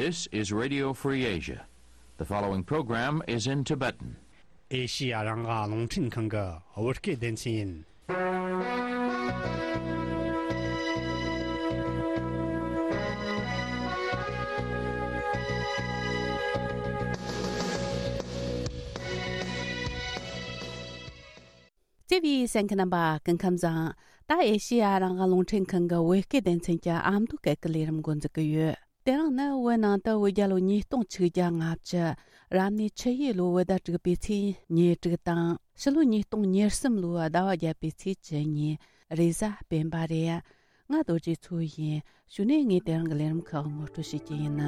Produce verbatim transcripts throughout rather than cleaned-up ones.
This is Radio Free Asia. The following program is in Tibetan. ཨེ་ཤི་ཡ་རང་དབང་རླུང་འཕྲིན་ཁང་གི་བོད་སྐད་སྡེ་ཚན་ཡིན། བརྩེ་བའི་གསན་མཁན་རྣམ་པ་སྐུ་ཁམས་བཟང་། ད་ཨེ་ཤི་ཡ་རང་དབང་རླུང་འཕྲིན་ཁང་གི་བོད་སྐད་སྡེ་ཚན་གྱི་ཨ་མདོ་སྐད་ཀྱི་ལས་རིམ་འགོ་འཛུགས་ཀྱི་ཡོད། དེ་རིང་ནི་བོད་ནང་དུ་བོད་རྒྱལ་ལོ་ཉིས་སྟོང་ཆིག་བརྒྱ་ལྔ་བཅུ། རབ་གནས་ཆུ་ཡོས་ལོའི་བོད་ཟླ་དྲུག་པའི་ཚེས་ཉེར་དྲུག་དང་། ཕྱི་ལོ་ཉིས་སྟོང་ཉེར་གསུམ་ལོའི་ཟླ་བ་བརྒྱད་པའི་ཚེས་བཅུ་གཉིས། རེས་གཟའ་སྤེན་པ་རེད། ང་རྡོ་རྗེ་མཚོ་ཡིན། གཞུག་ནས་ངས་དེ་རིང་གི་ལས་རིམ་ཁག་ངོ་སྤྲོད་བྱེད་ཀྱི་ཡིན།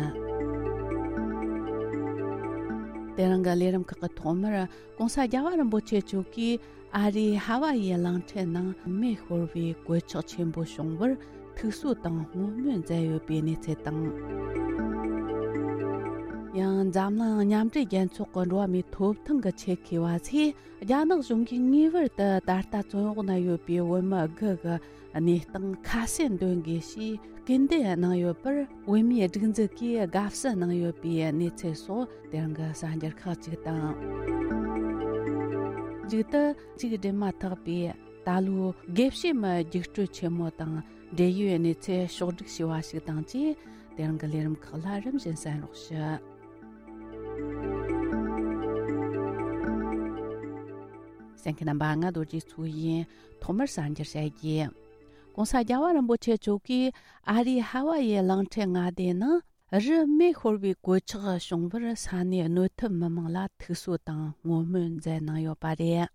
དེ་རིང་གི་ལས་རིམ་ཁག་གི་ཐོག་མར། ྋགོང་ས་རྒྱལ་བ་རིན་པོ་ཆེ་མཆོག་གིས་ཨ་རིའི་ཧ་ཝ་ཡི་གླིང་ཕྲན་ནང་མེ་ཤོར་བའི་གོད་ཆག་ཆེན་པོ་བྱུང་བར་ཐུགས་གསོ་དང་བསྔོ་སྨོན་མཛད་ཡོད་པའི་གནས་ཚུལ་དང་། ཡང་འཛམ་གླིང་མཉམ་འབྲེལ་རྒྱལ་ཚོགས་ཀྱི་འགྲོ་བ་མིའི་ཐོབ་ཐང་གི་ཆེད་མཁས་པ་ཚོས། རྒྱ་ནག་གཞུང་གིས་ངེས་པར་དུ་ད་ལྟ་བཙོན་འོག་ན་ཡོད་པའི་བོད་མི་དགུ་གི་གནས་སྟངས་ཁ་གསལ་འདོན་དགོས་ཞེས་སྐུལ་འདེད་གནང་ཡོད་པར། བོད་མིའི་སྒྲིག་འཛུགས་ཀྱིས་དགའ་བསུ་གནང་ཡོད་པའི་གནས་ཚུལ་སོགས་དེ་རིང་གི་གསར་འགྱུར་ཁག་ཅིག་དང་། མཇུག་ཏུ་གཅིག་སྒྲིལ་མ་ཐག་པའི་ད་ལོའི་དགེ་བཤེས་མའི་རྒྱུགས་སྤྲོད་ཆེན་མོ་དང་འབྲེལ་ཡོད་གནས་ཚུལ་ཕྱོགས་བསྒྲིགས་བྱས་པ་ཞིག་དང་བཅས། དེ་རིང་གི་ལས་རིམ་ཁག་ལ་རིམ་བཞིན་གསན་རོགས་ཞུ། གསན་མཁན་རྣམ་པ། ང་རྡོ་རྗེ་མཚོ་ཡིན། ཐོག་མར་གསར་འགྱུར་བཤད་རྒྱུ། ྋགོང་ས་རྒྱལ་བ་རིན་པོ་ཆེ་མཆོག་གིས་ཨ་རིའི་ཧ་ཝ་ཡི་གླིང་ཕྲན་མངའ་སྡེ་ནང་རི་མེ་ཤོར་བའི་གོད་ཆག་བྱུང་བར་ས་གནས་གནོད་ཐེབས་མི་མང་ལ་ཐུགས་གསོ་དང་བསྔོ་སྨོན་མཛད་གནང་ཡོད་པ་རེད།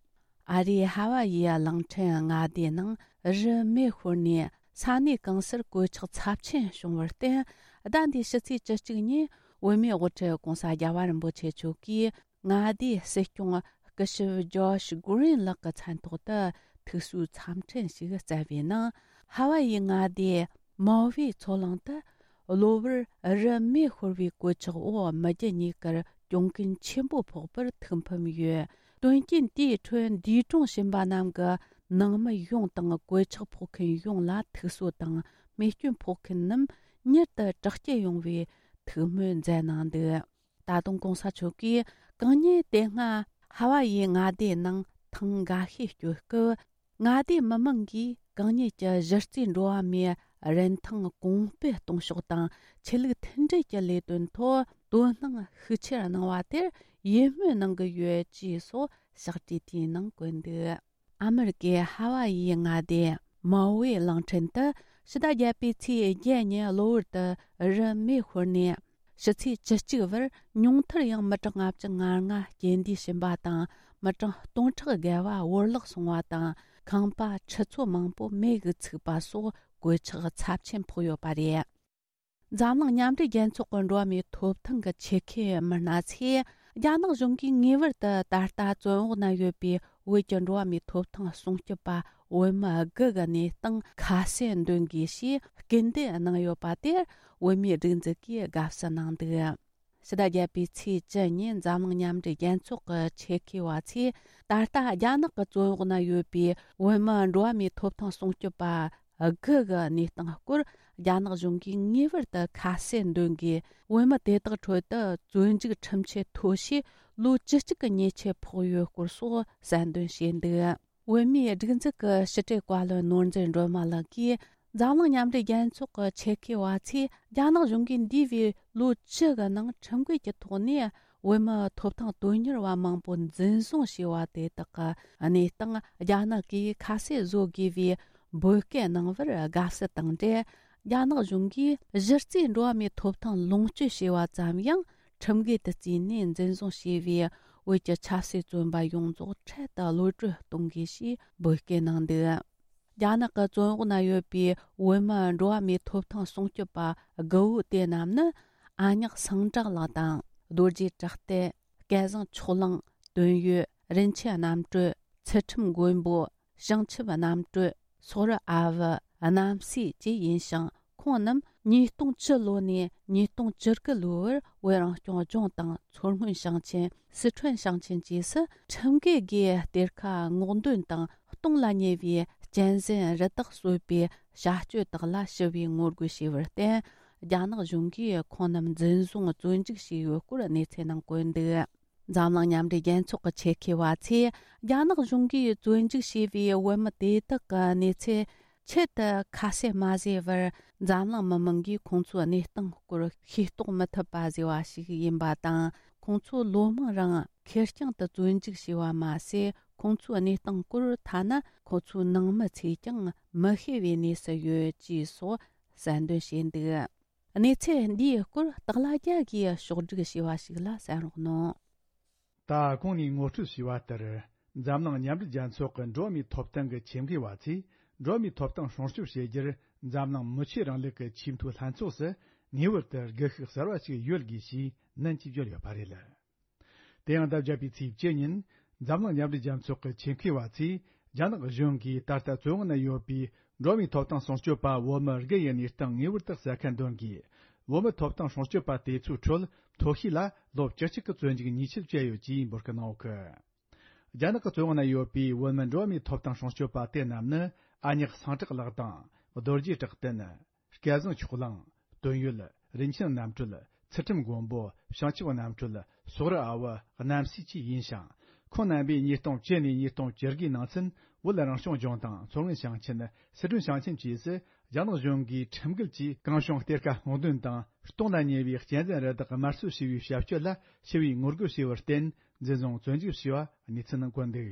ཨ་རིའི་ཧ་ཝ་ཡི་གླིང་ཕྲན་མངའ་སྡེའི་ནང་རི་མེ་ཤོར་ནས་ས་གནས་གང་སར་གོད་ཆག་ཚབས་ཆེན་བྱུང་བར་བརྟེན། ཟླ་འདིའི་ཕྱི་ཚེས་བཅུ་གཅིག་ཉིན་བོད་མིའི་དབུ་ཁྲིད་ྋགོང་ས་རྒྱལ་བ་རིན་པོ་ཆེ་མཆོག་གིས་མངའ་སྡེའི་སྲིད་སྐྱོང་སྐུ་ཞབས་ཇོརྗ་གྷུ་རིན་ལགས་ཀྱི་མཚན་ཐོག་ཏུ་ཐུགས་གསོའི་འཚམས་འཕྲིན་ཞིག་བསྩལ་བའི་ནང་། ཧ་ཝ་ཡི་མངའ་སྡེ་མའོ་ཝེ་མཚོ་གླིང་དུ་གློ་བུར་རི་མེ་ཤོར་བའི་གོད་ཆག་འོག་མི་རྒྱུ་གཉིས་ཀར་གྱོང་གུན་ཆེན་པོ་ཕོག་པར་ཐུགས་ཕམ་ཡོད། དོན་རྐྱེན་དེའི་ཁྲོད་འདས་གྲོངས་ཕྱིན་པ་རྣམས་ཀྱི་ནང་མི་ཡོངས་དང་གོད་ཆག་ཕོག་མཁན་ཡོངས་ལ་ཐུགས་གསོ་དང་། རྨས་སྐྱོན་ཕོག་མཁན་རྣམས་མྱུར་དུ་དྲག་སྐྱེད་ཡོང་བའི་ཐུགས་སྨོན་མཛད་གནང་འདུག་ད་དུང་ྋགོང་ས་མཆོག་གིས་གང་ཉིད་དེ་སྔ་ཧ་ཝ་ཡི་མངའ་སྡེའི་ནང་ཐེངས་འགའ་ཤས་བསྐྱོད་སྐབས། མངའ་སྡེའི་མི་མང་གིས་གང་ཉིད་ཀྱི་གཞི་རྩའི་འགྲོ་བ་མིའི་རིན་ཐང་གོང་སྤེལ་གཏོང་ཕྱོགས་དང་ཆོས་ལུགས་མཐུན་སྒྲིལ་གྱི་ལས་དོན་ཐོག་དོ་སྣང་ཤུགས་ཆེར་གནང་བ་དེར་ཡིད་སྨོན་གནང་གི་ཡོད་ཅེས་སོགས་ཕྱག་བྲིས་དེའི་ནང་བཀོད་འདུག་ཨ་མེ་རི་ཀའི་ཧ་ཝ་ཡི་མངའ་སྡེ་མའོ་ཝེ་གླིང་ཕྲན་དུ་ཕྱི་ཟླ་བརྒྱད་པའི་ཚེས་བརྒྱད་ཉིན་གློ་བུར་དུ་རི་མེ་ཤོར་ནས། ཕྱི་ཚེས་བཅུ་གཅིག་བར་ཉུང་མཐར་ཡང་མི་གྲངས་ལྔ་བཅུ་ང་ལྔ་རྐྱེན་འདས་ཕྱིན་པ་དང་། མི་གྲངས་སྟོང་ཕྲག་བརྒལ་བ་བོར་བརླག་སོང་བ་དང་། ཁང་པ་ཁྲི་ཚོ་མང་པོ་མེ་གིས་ཚིག་པ་སོགས་གོད་ཆག་ཚབས་ཆེན་ཕོག་ཡོད་པ་རེད། འཛམ་གླིང་མཉམ་འབྲེལ་རྒྱལ་ཚོགས་ཀྱི་འགྲོ་བ་མིའི་ཐོབ་ཐང་གི་ཆེད་མཁས་མི་སྣ་ཚོས། རྒྱ་ནག་གཞུང་གིས་ངེས་པར་དུ་ད་ལྟ་བཙོན་འོག་ན་ཡོད་པའི་བོད་ཀྱི་འགྲོ་བ་མིའི་ཐོབ་ཐང་སྲུང་སྐྱོབ་པ་བོད་མི་དགུ་གི་གནས་སྟངས་ཁ་གསལ་འདོན་དགོས་ཞེས་སྐུལ་འདེད་གནང་ཡོད་པ་དེར་བོད་མིའི་སྒྲིག་འཛུགས་ཀྱིས་དགའ་བསུ་གནང་འདུག་ཕྱི་ཟླ་བརྒྱད་པའི་ཚེས་བཅུ་ཉིན་འཛམ་གླིང་མཉམ་འབྲེལ་རྒྱལ་ཚོགས་ཀྱི་ཆེད་མཁས་པ་ཚོས་ད་ལྟ་རྒྱ་ནག་གི་བཙོན་འོག་ན་ཡོད་པའི་བོད་མི་འགྲོ་བ་མིའི་ཐོབ་ཐང་སྲུང་སྐྱོབ་པ་དགུ་གི་གནས་སྟངས་སྐོར་རྒྱ་ནག་གཞུང་གིས་ངེས་པར་དུ་ཁ་གསལ་འདོན་དགོས། བོད་མི་དེ་དག་ཁྲོད་དུ་བཙོན་འཇུག་ཁྲིམས་ཆད་ཐོ་བྱས་ལོ་བཅུ་གཅིག་གི་ཉེས་ཆད་ཕོག་ཡོད་སྐོར་སོགས་གསལ་འདོན་བྱས་འདུག་བོད་མིའི་སྒྲིག་འཛུགས་ཀྱི་ཕྱི་དྲིལ་བཀའ་བློན་ནོར་འཛིན་སྒྲོལ་མ་ལགས་ཀྱིས། འཛམ་གླིང་མཉམ་འབྲེལ་རྒྱལ་ཚོགས་ཀྱི་ཆེད་མཁས་པ་ཚོས་རྒྱ་ནག་གཞུང་གིས་འདས་པའི་ལོ་བཅུ་གི་ནང་ཁྲིམས་འགལ་གྱི་ཐོག་ནས་བོད་མི་ཐོབ་ཐང་དོན་གཉེར་བ་མང་པོ་འཛིན་བཟུང་བྱས་པ་དེ་དག་གི་གནས་སྟངས་རྒྱ་ནག་གིས་ཁ་གསལ་བཟོ་དགོས་པའི་འབོད་སྐུལ་གནང་བར་དགའ་བསུ་དང་འབྲེལ། རྒྱ་ནག་གཞུང་གིས་གཞི་རྩའི་འགྲོ་བ་མིའི་ཐོབ་ཐང་ལོངས་སྤྱོད་བྱས་པ་ཙམ་ཡང་ཁྲིམས་འགལ་དུ་བརྩིས་ནས་འཛིན་བཟུང་བྱས་པའི་བོད་ཀྱི་ཆབ་སྲིད་བཙོན་པ་ཡོངས་རྫོགས་འཕྲལ་དུ་གློད་གྲོལ་གཏོང་དགོས་ཞེས་འབོད་སྐུལ་གནང་འདུག་རྒྱ་ནག་གི་བཙོན་འོག་ན་ཡོད་པའི་བོད་མི་འགྲོ་བ་མིའི་ཐོབ་ཐང་སྲུང་སྐྱོབ་པ་དགུ་བོ་དེ་རྣམས་ནི། ཨ་ཉག་སངས་བྲག་ལགས་དང་། རྡོ་རྗེ་བྲག་སྟེ། སྐལ་བཟང་ཕྱོགས་གླང་། དོན་ཡོད། རིན་ཆེན་རྣམ་གྲོལ། ཚུལ་ཁྲིམས་མགོན་པོ། བྱང་ཆུབ་རྣམ་གྲོལ། སོག་རི་ཨ་བུ། རྣམ་སྲས་བཅས་ཡིན་ཞིང་། ཁོང་རྣམས་ཉིས་སྟོང་བཅུ་ལོ་ནས་ཉིས་སྟོང་བཅུ་དགུ་ལོའི་བར་བོད་རང་སྐྱོང་ལྗོངས་དང་མཚོ་སྔོན་ཞིང་ཆེན། སི་ཁྲོན་ཞིང་ཆེན་བཅས་སུ་ཁྲིམས་འགལ་སྒོས་གཏེར་ཁ་སྔོག་འདོན་དང་གཏོང་ལ་ཉེ་བའི་གཅན་གཟན་རི་དྭགས་གསོད་པའི་བྱ་སྤྱོད་དག་ལ་ཞི་བའི་ངོ་རྒོལ་བྱས་པར་བརྟེན། རྒྱ་ནག་གཞུང་གིས་ཁོང་རྣམས་འཛིན་བཟུང་བཙོན་འཇུག་བྱས་ཡོད་སྐོར་གནས་ཚུལ་ནང་བཀོད་འདུག་འཛམ་གླིང་མཉམ་འབྲེལ་རྒྱལ་ཚོགས་ཀྱི་ཆེད་མཁས་པ་ཚོས་རྒྱ་ནག་གཞུང་གིས་བཙོན་འཇུག་བྱས་པའི་བོད་མི་དེ་དག་གི་གནས་ཚུལ་ཆེད་དུ་ཁ་གསལ་མ་བཟོས་པར། འཛམ་གླིང་མི་མང་གིས་ཁོང་ཚོའི་གནས་སྟངས་སྐོར་ཤེས་རྟོགས་མི་ཐུབ་པ་བཟོས་པ་ཞིག་ཡིན་པ་དང་། ཁོང་ཚོ་ལོ་མང་རིང་ཁེར་རྐྱང་དུ་བཙོན་འཇུག་བྱས་པ་མ་ཟད། ཁོང་ཚོའི་གནས་སྟངས་སྐོར་ཐ་ན་ཁོ་ཚོའི་ནང་མི་ཚོས་ཀྱང་མི་ཤེས་པའི་གནས་སུ་ཡོད་ཅེས་སོགས་གསལ་འདོན་བྱས་འདུག་གནས་ཚུལ་འདིའི་སྐོར་སྟག་ལྷ་རྒྱལ་གྱིས་ཕྱོགས་བསྒྲིགས་བྱས་པ་ཞིག་ལ་གསན་རོགས་གནང་། ད་གོང་ནས་ངོ་སྤྲོད་བྱས་པ་ལྟར། འཛམ་གླིང་མཉམ་འབྲེལ་རྒྱལ་ཚོགས་ཀྱི་འགྲོ་བ་མིའི་ཐོབ་ཐང་གི་ཆེད་མཁས་པ་ཚོས། འགྲོ་བ་མིའི་ཐོབ་ཐང་སྲུང་སྐྱོབ་བྱེད་རྒྱུར། འཛམ་གླིང་མི་ཆོས་རིང་ལུགས་ཀྱི་ཆེས་མཐོའི་ལྷན་ཚོགས་སུ། ངེས་པར་དུ་སྒུལ་ཤུགས་གསར་བ་ཞིག་ཡོད་དགོས་ཞེས་ནན་གྱིས་བརྗོད་ཡོད་པ་རེད། དེ་ཡང་ཟླ་བརྒྱད་པའི་ཚེས་བཅུ་ཉིན། འཛམ་གླིང་མཉམ་འབྲེལ་རྒྱལ་ཚོགས་ཀྱི་ཆེད་མཁས་པ་ཚོས། རྒྱ་ནག་གཞུང་གིས་ད་ལྟ་བཙོན་འོག་ན་ཡོད་པའི་འགྲོ་བ་མིའི་ཐོབ་ཐང་སྲུང་སྐྱོབ་པ་བོད་མི་དགུ་ཡི་གནས་སྟངས་ངེས་པར་དུ་གསལ་ཁ་འདོན་དགོས། བོད་མི་ཐོབ་ཐང་སྲུང་སྐྱོབ་པ་དེ་ཚོའི་ཁྲོད་མཐོ་ཤོས་ལ་ལོ་བཅུ་གཅིག་གི་བཙོན་འཇུག་ཉེས་ཆད་བཅད་ཡོད་ཅེས་འབོད་སྐུལ་གནང་ཡོད་གི། རྒྱ་ནག་གི་བཙོན་འོག་ན་ཡོད་པའི་བོད་མི་འགྲོ་བ་མིའི་ཐོབ་ཐང་སྲུང་སྐྱོབ་པ་དེ་རྣམས་ནི། ཨ་ཉག་སངས་གྲགས་ལགས་དང་། རྡོ་རྗེ་གྲགས་བསྟན། སྐལ་བཟང་ཕྱོགས་གླང་། དོན་ཡོད། རིན་ཆེན་རྣམ་གྲོལ། ཚུལ་ཁྲིམས་མགོན་པོ། བྱང་ཆུབ་རྣམ་གྲོལ། སོག་རི་ཨ་བུ། རྣམ་སྲས་བཅས་ཡིན་ཞིང་། ཁོང་རྣམ་པས་ཉིས་སྟོང་བཅུ་ནས་ཉིས་སྟོང་བཅུ་དགུའི་ནང་ཚུན། བོད་རང་སྐྱོང་ལྗོངས་དང་། མཚོ་སྔོན་ཞིང་ཆེན། སི་ཁྲོན་ཞིང་ཆེན་བཅས་སུ། རྒྱ་ནག་གཞུང་གིས་ཁྲིམས་འགལ་གྱིས་གང་བྱུང་གཏེར་ཁ་སྔོག་འདོན་དང་། སྟོང་ལ་ཉེ་བའི་གཅན་གཟན་རུ་དྭགས་དམར་གསོད་བྱས་པའི་བྱ་སྤྱོད་ལ་ཞི་བའི་ངོ་རྒོལ་བྱས་པར་བརྟེན། འཛིན་བཟུང་བཙོན་འཇུག་བྱས་པ་གནས་ཚུལ་ནང་བཀོད་འདུག་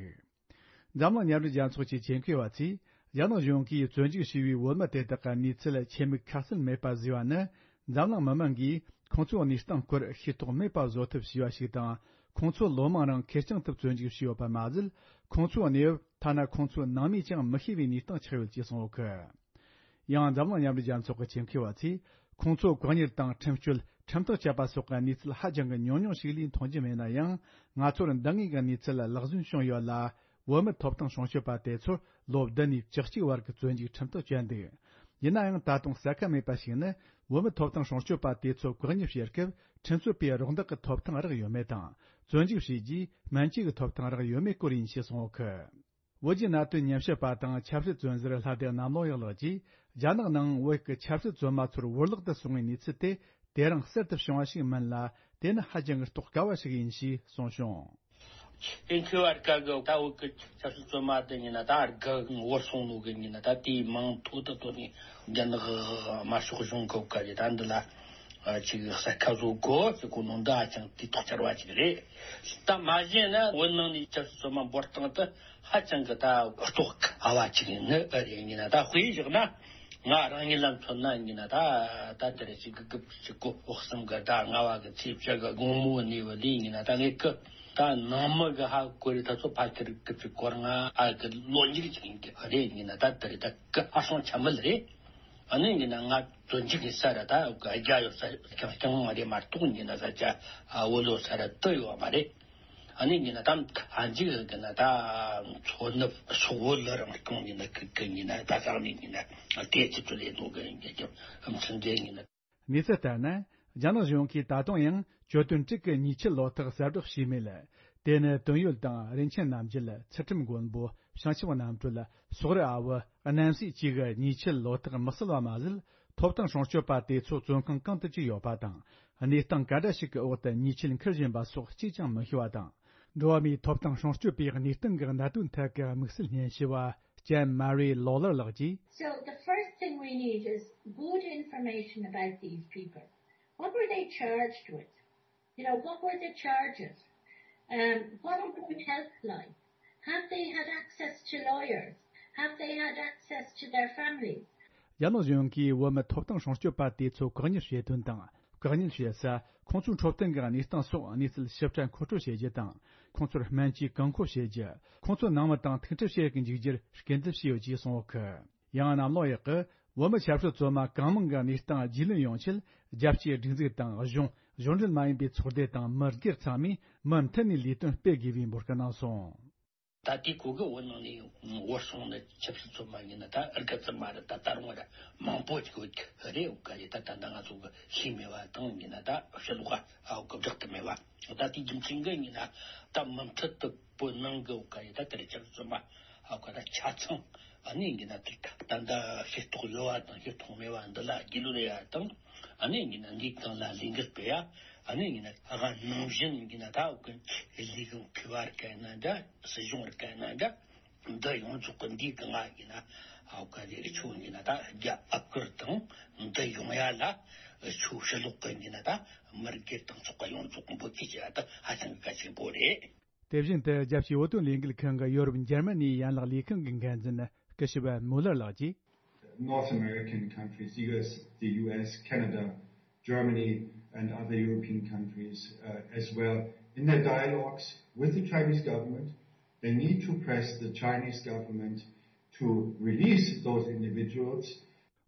འཛམ་གླིང་མཉམ་འབྲེལ་རྒྱལ་ཚོགས་ཀྱི་ཆེད་མཁས་པ་ཚོས། རྒྱ་ནག་གཞུང་གིས་བཙོན་འཇུག་བྱས་པའི་བོད་མི་དེ་དག་གི་གནས་ཚུལ་ཆེད་དམིགས་ཁ་གསལ་མེད་པ་བཟོས་པ་ནི། འཛམ་གླིང་མི་མང་གིས་ཁོང་ཚོའི་གནས་སྟངས་སྐོར་ཤེས་རྟོགས་མེད་པ་བཟོ་ཐབས་བྱས་པ་ཞིག་དང་། ཁོང་ཚོ་ལོ་མང་རིང་ཁེར་རྐྱང་དུ་བཙོན་འཇུག་བྱས་ཡོད་པ་མ་ཟད། ཁོང་ཚོའི་གནས་བབ་ཐ་ན་ཁོང་ཚོའི་ནང་མིས་ཀྱང་མི་ཤེས་པའི་གནས་སྟངས་ཆགས་ཡོད་ཅེས་གསུངས་ཡོད་གི། ཡང་འཛམ་གླིང་མཉམ་འབྲེལ་རྒྱལ་ཚོགས་ཀྱི་ཆེད་མཁས་པ་ཚོས། ཁོང་ཚོ་བཀག་ཉར་དང་ཁྲིམས་གཅོད། ཁྲིམས་ཐག་བཅད་པ་སོགས་ཀྱི་གནས་ཚུལ་ཧ་ཅང་གི་ཉུང་ཉུང་ཞིག་ལས་མཐོང་རྒྱུ་མེད་ན་ཡང་། ང་ཚོར་འདང་ངེས་ཀྱི་གནས་ཚུལ་ལག་ཟིན་བྱུང་ཡོད་ལ། བོད་མི་ཐོབ་ཐང་སྲུང་སྐྱོབ་པ་དེ་ཚོར་ལོ་བདུན་ནས་བཅུ་གཅིག་བར་གྱི་བཙོན་འཇུག་ཁྲིམས་ཐག་བཅད་འདུག་ཡིན་ན་ཡང་། ད་དུང་གསལ་ཁ་མེད་པ་ཞིག་ནི། བོད་མི་ཐོབ་ཐང་སྲུང་སྐྱོབ་པ་དེ་ཚོ་བཀག་ཉར་བྱེད་སྐབས། ཁྲིམས་རྩོད་པའི་རོགས་འདེགས་ཀྱི་ཐོབ་ཐང་རག་ཡོད་མེད་དང་། བཙོན་འཇུག་བྱས་རྗེས་སྨན་བཅོས་ཀྱི་ཐོབ་ཐང་རག་ཡོད་མེད་སྐོར་ཡིན་ཞེས་གསུངས་ཡོད་གི། བོད་ཀྱི་གནད་དོན་ཉམས་ཞིབ་པ་དང་ཆབ་སྲིད་བཙོན་ཟུར་ལྷ་སྡེ་གནམ་ལོ་ཡག་ལགས་ཀྱིས། རྒྱ་ནག་ནང་བོད་ཀྱི་ཆབ་སྲིད་བཙོན་མ་ཚོར་བོར་བརླག་ཏུ་སོང་བའི་གནས་ཚུལ་དེ། དེ་རིང་གསར་དུ་བྱུང་བ་ཞིག་མིན་ལ། དེ་ནི་ཧ་ཅང་གི་རྟོགས་དཀའ་བ་ཞིག་ཡིན་ཞེས་གསུངས་བྱུང་། ཨིན་ཁུ་བར་ཀ་གི་ད་བོད་ཀྱི་ཆབ་སྲིད་བཙོན་མ་དེ་ཡིན་ན། ད་རྒ་བོར་སོང་ནོ་གི་ཡིན་ན། ད་དེའི་མིང་ཐོག་ཏུ་ཐོག་ནས་རྒྱ་ནག་དམར་ཤོག་གཞུང་གི་བཀའ་རྒྱ་ད་འདི་ལ་ཅིག་གསལ་ཁ་བཟོ་དགོས་ཟེར་གོ་ནོ་འདི་ཧ་ཅང་དུས་ཐོག་ཆར་བ་ཅིག་རེད། ད་མ་གཞི་ན་བོད་ནང་ནས་ཆབ་སྲིད་བཙོན་མ་འབོར་སྟངས་དེ་ཧ་ཅང་གི་ད་རྟོགས་དཀའ་བ་ཅིག་ནི་རེད། ཡིན་ན་ད་དཔེ་བཞག་ན། ང་རང་ཉིད་ལ་མཚོན་ན་ཡིན་ན། ད་ད་དེ་རེད། ཅིག་དགུ་བཅུ་གོ་གསུམ་གི་ད་ལྔ་བ་གི་ཚེས་བཅུ་གི་དགོང་མོ་ནས་བ་ལས་ཡིན་ན། ད་ངས་ཀི་ད་ནང་མི་གི་ཧ་གོ་རེ་ད་ཚོ་ཕ་ཁྱེར་དགུ་བཅུ་གོ་ལྔ་ཨ་གི་ལོ་མཇུག་ཅིག་ཡིན་གི་རེད། ཡིན་ན་ད་དེ་རེད། ད་ཀི་ཧ་སོང་ཆ་མེད་རེད། ཨ་ནི་ཡིན་ན་ང་བཙོན་འཇུག་གི་ས་ར་ད་རྒྱ་ཡོད་ས་རྐྱང་རྐྱང་མ་རེད་མ་གཏོགས། ཡིན་ན་ས་ཆ་བོད་ལོ་ས་ར་དུ་ཡོད་མ་རེད། ཨ་ནི་ཡིན་ན་ད་ཨ་འཇིག་གི་ན་ད་མཚོ་ནུབ་སོག་བོད་ལ་རང་སྐྱོང་ཡིན་ན་ཁི་ཁི་ཡིན་ན་ད་ས་ནི་ཡིན་ན་དེ་ཅི་ཚོ་ལས་ནོ་གི་ཡིན་གི་ཨམ་ཚན་དེ་ཡིན་ན། གནས་ཚུལ་ལྟར་ན། རྒྱ་ནག་གཞུང་གིས་ད་དུང་ཡང་གྱོད་དོན་དྲུག་གི་ཉེས་ཆད་ལོ་ཐོག་གསལ་བསྒྲགས་བྱས་མེད། དེ་ནི་དོན་ཡོད་དང་། རིན་ཆེན་རྣམ་རྒྱལ། ཚུལ་ཁྲིམས་མགོན་པོ། བྱང་ཆུབ་རྣམ་གྲོལ། སོག་རི་ཨ་བུ། རྣམ་སྲས་བཅས་ཀྱི་ཉེས་ཆད་ལོ་ཐོག་མི་གསལ་བ་མ་ཟད། ཐོབ་ཐང་སྲུང་སྐྱོབ་པ་དེ་ཚོ་བཙོན་ཁང་གང་དུ་བཅུག་ཡོད་པ་དང་། གནས་སྟངས་ག་འདྲ་ཞིག་གི་འོག་ཏུ་ཉེས་ཆད་འཁུར་བཞིན་པ་སོགས་གཅིག་ཀྱང་མི་ཤེས་པ་དང་། འགྲོ་བ་མིའི་ཐོབ་ཐང་སྲུང་སྐྱོབ་པའི་གནས་སྟངས་ཀྱི་གནད་དོན་ཐད་ཀྱི་དམིགས་བསལ་སྙན་ཞུ་བ། ཅན་མ་རི་ལོ་ལར་ལགས་ཀྱིས། So the first thing we need is good information about these people. What were they charged with? You know, what were the charges? Um, what about their health life? Have they had access to lawyers? Have they had access to their families? རྒྱ་ནག་གཞུང་གིས་བོད་མི་ཐོབ་ཐང་སྲུང་སྐྱོབ་པ་དེ་ཚོ་བཀག་ཉར་བྱེད་དོན་དང་། བཀག་ཉར་བྱེད་ས། ཁོང་ཚོའི་འཕྲོད་བསྟེན་གྱི་གནས་སྟངས་སོགས་གནས་ཚུལ་ཞིབ་ཕྲ་མཁོ་སྤྲོད་བྱེད་རྒྱུ་དང་། ཁོང་ཚོར་སྨན་བཅོས་བཀག་འགོག་བྱེད་རྒྱུ། ཁོང་ཚོའི་ནང་མི་དང་ཐུག་འཕྲད་བྱེད་དུ་འཇུག་རྒྱུར་སྐུལ་འདེད་བྱས་ཡོད་ཅེས་གསུངས་ཡོད་གི། ཡང་གནམ་ལོ་ཡག་གིས་བོད་མི་ཆབ་སྲིད་བཙོན་མ་གང་མང་གི་གནས་སྟངས་རྒྱུས་ལོན་ཡོང་ཆེད། རྒྱལ་སྤྱིའི་སྒྲིག་འཛུགས་དང་། གཞུང་། གཞུང་འབྲེལ་མ་ཡིན་པའི་ཚོགས་སྡེ་དང་མི་སྒེར་ཚང་མས་མུ་མཐུད་ནས་ལས་དོན་སྤེལ་དགོས་པའི་འབོད་སྐུལ་གནང་སོང་། ད་དེའི་གོ་གི་བོད་ནང་ནས་བོར་སོང་ནི་ཆབ་སྲིད་བཙོན་མ་ཡིན་ན་ད་ཨར་ག་ཙམ་མ་རེད། ད་ད་རུང་ར་མང་པོ་ཅིག་ཡོད་ཀྱི་རེད། འོ་ག་རེད། ད་ད་ལྟ་ང་ཚོ་གི་ཤེས་མེད་པ་དང་ཡིན་ན་ད་ཕྱི་ལོགས་ཨ་འོ་གི་བསྒྲགས་ཐུབ་མེད་པ། ད་དེའི་རྒྱུ་མཚན་གི་ཡིན་ན་ད་མུ་མཐུད་དུ་བོད་ནང་གི་འོ་ག་རེད། ད་དེ་རིང་ཆབ་སྲིད་བཙོན་མ་ཨ་འོ་ག་ད་ཆ་ཚང་ཨ་ནི་ཡིན་ན་དེ་ད་ད་ལྟ་ཤེས་རྟོགས་ཡོད་པ་དང་ཤེས་རྟོགས་མེད་པ་འདི་ལ་རྒྱུས་ལོན་ཡ་དང་། ཨ་ནི་ཡིན་ན་འདིའི་སྟེང་ལ་ལས་འགུལ་སྤེལ་ཡ། ཨ་ནི་ཡིན་ན་ཨ་ག་ནང་བཞིན་ཡིན་ན་ད་འོ་གི་ལས་ཁུངས་མཁས་པ་རིགས་ཡིན་ན་འདྲ། སྲིད་གཞུང་རིགས་ཡིན་ན་འདྲ། འདི་ཡོངས་རྫོགས་ཀྱི་འདིའི་སྒང་ང་ཡིན་ན་ཨ་ག་དེ་ཆོ་ཡིན་ན་ད་རྒྱ་ཨ་ཁུར་དང་འདི་ཡོང་ཡ་ལ་ཆོ་ཕྱི་ལོགས་ཀྱི་ཡིན་ན་ད་མི་སྒེར་དང་ཚོགས་པ་ཡོངས་རྫོགས་འབོད་སྐུལ་བྱེད་ཡ་ད་ཧ་ཅང་གལ་ཆེན་པོ་རེད། དེ་བཞིན་དུ་རྒྱལ་སྤྱིའི་བོད་དོན་ལས་འགུལ་ཁང་གི་ཡོ་རོབ་འཇར་མ་ནིའི་ཡན་ལག་ལས་ཁང་གི་འགན་འཛིན་སྐུ་ཞབས་མུ་ལར་ལགས་ཀྱིས། North American countries, the U S, the U S, Canada, Germany, and other European countries uh, as well, in their dialogues with the Chinese government, they need to press the Chinese government to release those individuals.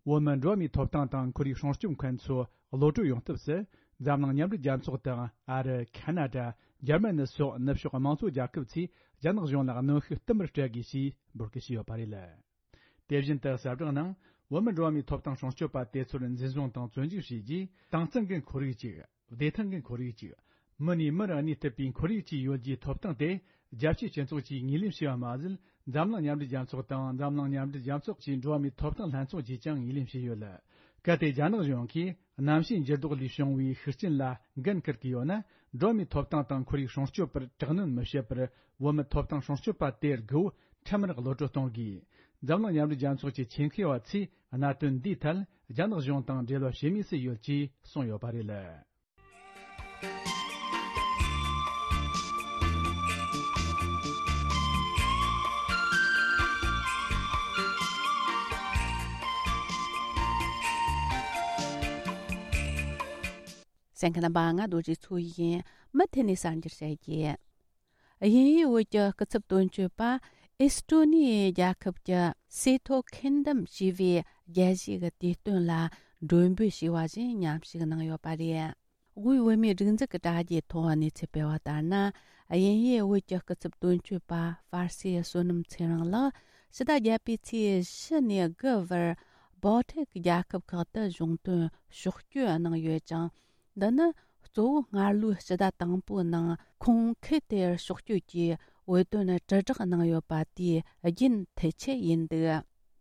བོད་མི་འགྲོ་བ་མིའི་ཐོབ་ཐང་དང་ཁོར་ཡུག་སྲུང་སྐྱོབ་མཁན་ཚོ་གློད་གྲོལ་ཡོང་ཐབས་སུ། འཛམ་གླིང་མཉམ་འབྲེལ་རྒྱལ་ཚོགས་དང་ཨ་རི། ཁ་ན་ཌ། འཇར་མ་ནི་སོགས་ནུབ་ཕྱོགས་དམངས་གཙོ་རྒྱལ་ཁབ་ཚོས་རྒྱ་ནག་གཞུང་ལ་གནོན་ཤུགས་བསྟུད་མར་སྤྲད་དགོས་ཞེས་འབོད་སྐུལ་བྱས་ཡོད་པ་རེད། དེ་བཞིན་དུ་གསལ་བསྒྲགས་ནང་བོད་མི་འགྲོ་བ་མིའི་ཐོབ་ཐང་སྲུང་སྐྱོབ་པ་དེ་ཚོར་འཛིན་བཟུང་དང་བཙོན་འཇུག་བྱས་རྗེས། དྭངས་གཙང་གི་ཁོར་ཡུག་ཅིག་བདེ་ཐང་གི་ཁོར་ཡུག་ཅིག་མི་ནས་མི་རུ་གནས་ཐུབ་པའི་ཁོར་ཡུག་ཅིག་ཡོད་རྒྱུའི་ཐོབ་ཐང་དེ་རྒྱལ་སྤྱིའི་སྤྱི་ཚོགས་ཀྱིས་ངོས་ལེན་བྱས་པ་མ་ཟད། འཛམ་གླིང་མཉམ་འབྲེལ་རྒྱལ་ཚོགས་དང་འཛམ་གླིང་མཉམ་འབྲེལ་རྒྱལ་ཚོགས་ཀྱི་འགྲོ་བ་མིའི་ཐོབ་ཐང་ལྷན་ཚོགས་ཀྱིས་ཀྱང་ངོས་ལེན་བྱས་ཡོད། གལ་ཏེ་རྒྱ་ནག་གཞུང་གིས་གནམ་གཤིས་འགྱུར་ལྡོག་ལས་བྱུང་བའི་ཤུགས་རྐྱེན་ལ་འགན་འཁུར་གྱི་ཡོད་ན། འགྲོ་བ་མིའི་ཐོབ་ཐང་དང་ཁོར་ཡུག་སྲུང་སྐྱོབ་པར་དྲག་གནོན་མི་བྱེད་པར། བོད་མི་ཐོབ་ཐང་སྲུང་སྐྱོབ་པ་དེར་དགོས་པ་ཁྲིམས་ལྟར་གློད་གྲོལ་གཏོང་དགོས། འཛམ་གླིང་མཉམ་འབྲེལ་རྒྱལ་ཚོགས་ཀྱི་ཆེད་མཁས་པ་ཚོས་གནད་དོན་འདིའི་ཐད་རྒྱ་ནག་གཞུང་དང་འབྲེལ་བ་བྱེད་མུས་སུ་ཡོད་ཅེས་གསུངས་ཡོད་པ་རེད། གསན་མཁན་རྣམ་པ། ང་རྡོ་རྗེ་མཚོ་ཡིན། མུ་མཐུད་ནས་གསར་འགྱུར་བཤད་རྒྱུ། དབྱིན་ཡུལ་བོད་ཀྱི་སྐུ་ཚབ་དོན་གཅོད་པ་ཨེས་ཀྲོ་ནི་ཡའི་རྒྱལ་ཁབ་ཀྱི་སི་ཐོ་ཁིན་ཌམ་ཞེས་པའི་རྒྱལ་སྤྱིའི་དུས་སྟོན་ལ་མགྲོན་འབོད་བྱས་པ་བཞིན་མཉམ་ཞུགས་གནང་ཡོད་པ་རེད། དབུས་བོད་མིའི་སྒྲིག་འཛུགས་ཀྱི་དྲ་རྒྱའི་ཐོག་གནས་ཚུལ་སྤེལ་བ་ལྟར་ན། དབྱིན་ཡུལ་བོད་ཀྱི་སྐུ་ཚབ་དོན་གཅོད་པ་ཧྥ་སེ་བསོད་ནམས་ཚེ་རིང་ལགས་ཕྱི་ཟླ་བརྒྱད་པའི་ཚེས་བཞི་ནས་དགུ་བར་བོལ་ཊིག་རྒྱལ་ཁབ་ཁག་ཏུ་གཞུང་དོན་ཕྱོགས་བསྐྱོད་གནང་ཡོད་ཅིང་། འདི་ནི་གཙོ་བོ་སྔར་ལོའི་ཕྱི་ཟླ་དང་པོའི་ནང་ཁོང་ཁུལ་དེར་ཕྱོགས་བསྐྱོད་ཀྱིས་བོད་དོན་དྲིལ་བསྒྲགས་གནང་ཡོད་པ་དེའི་རྒྱུན་མཐུད་ཆེད་ཡིན་འདུག་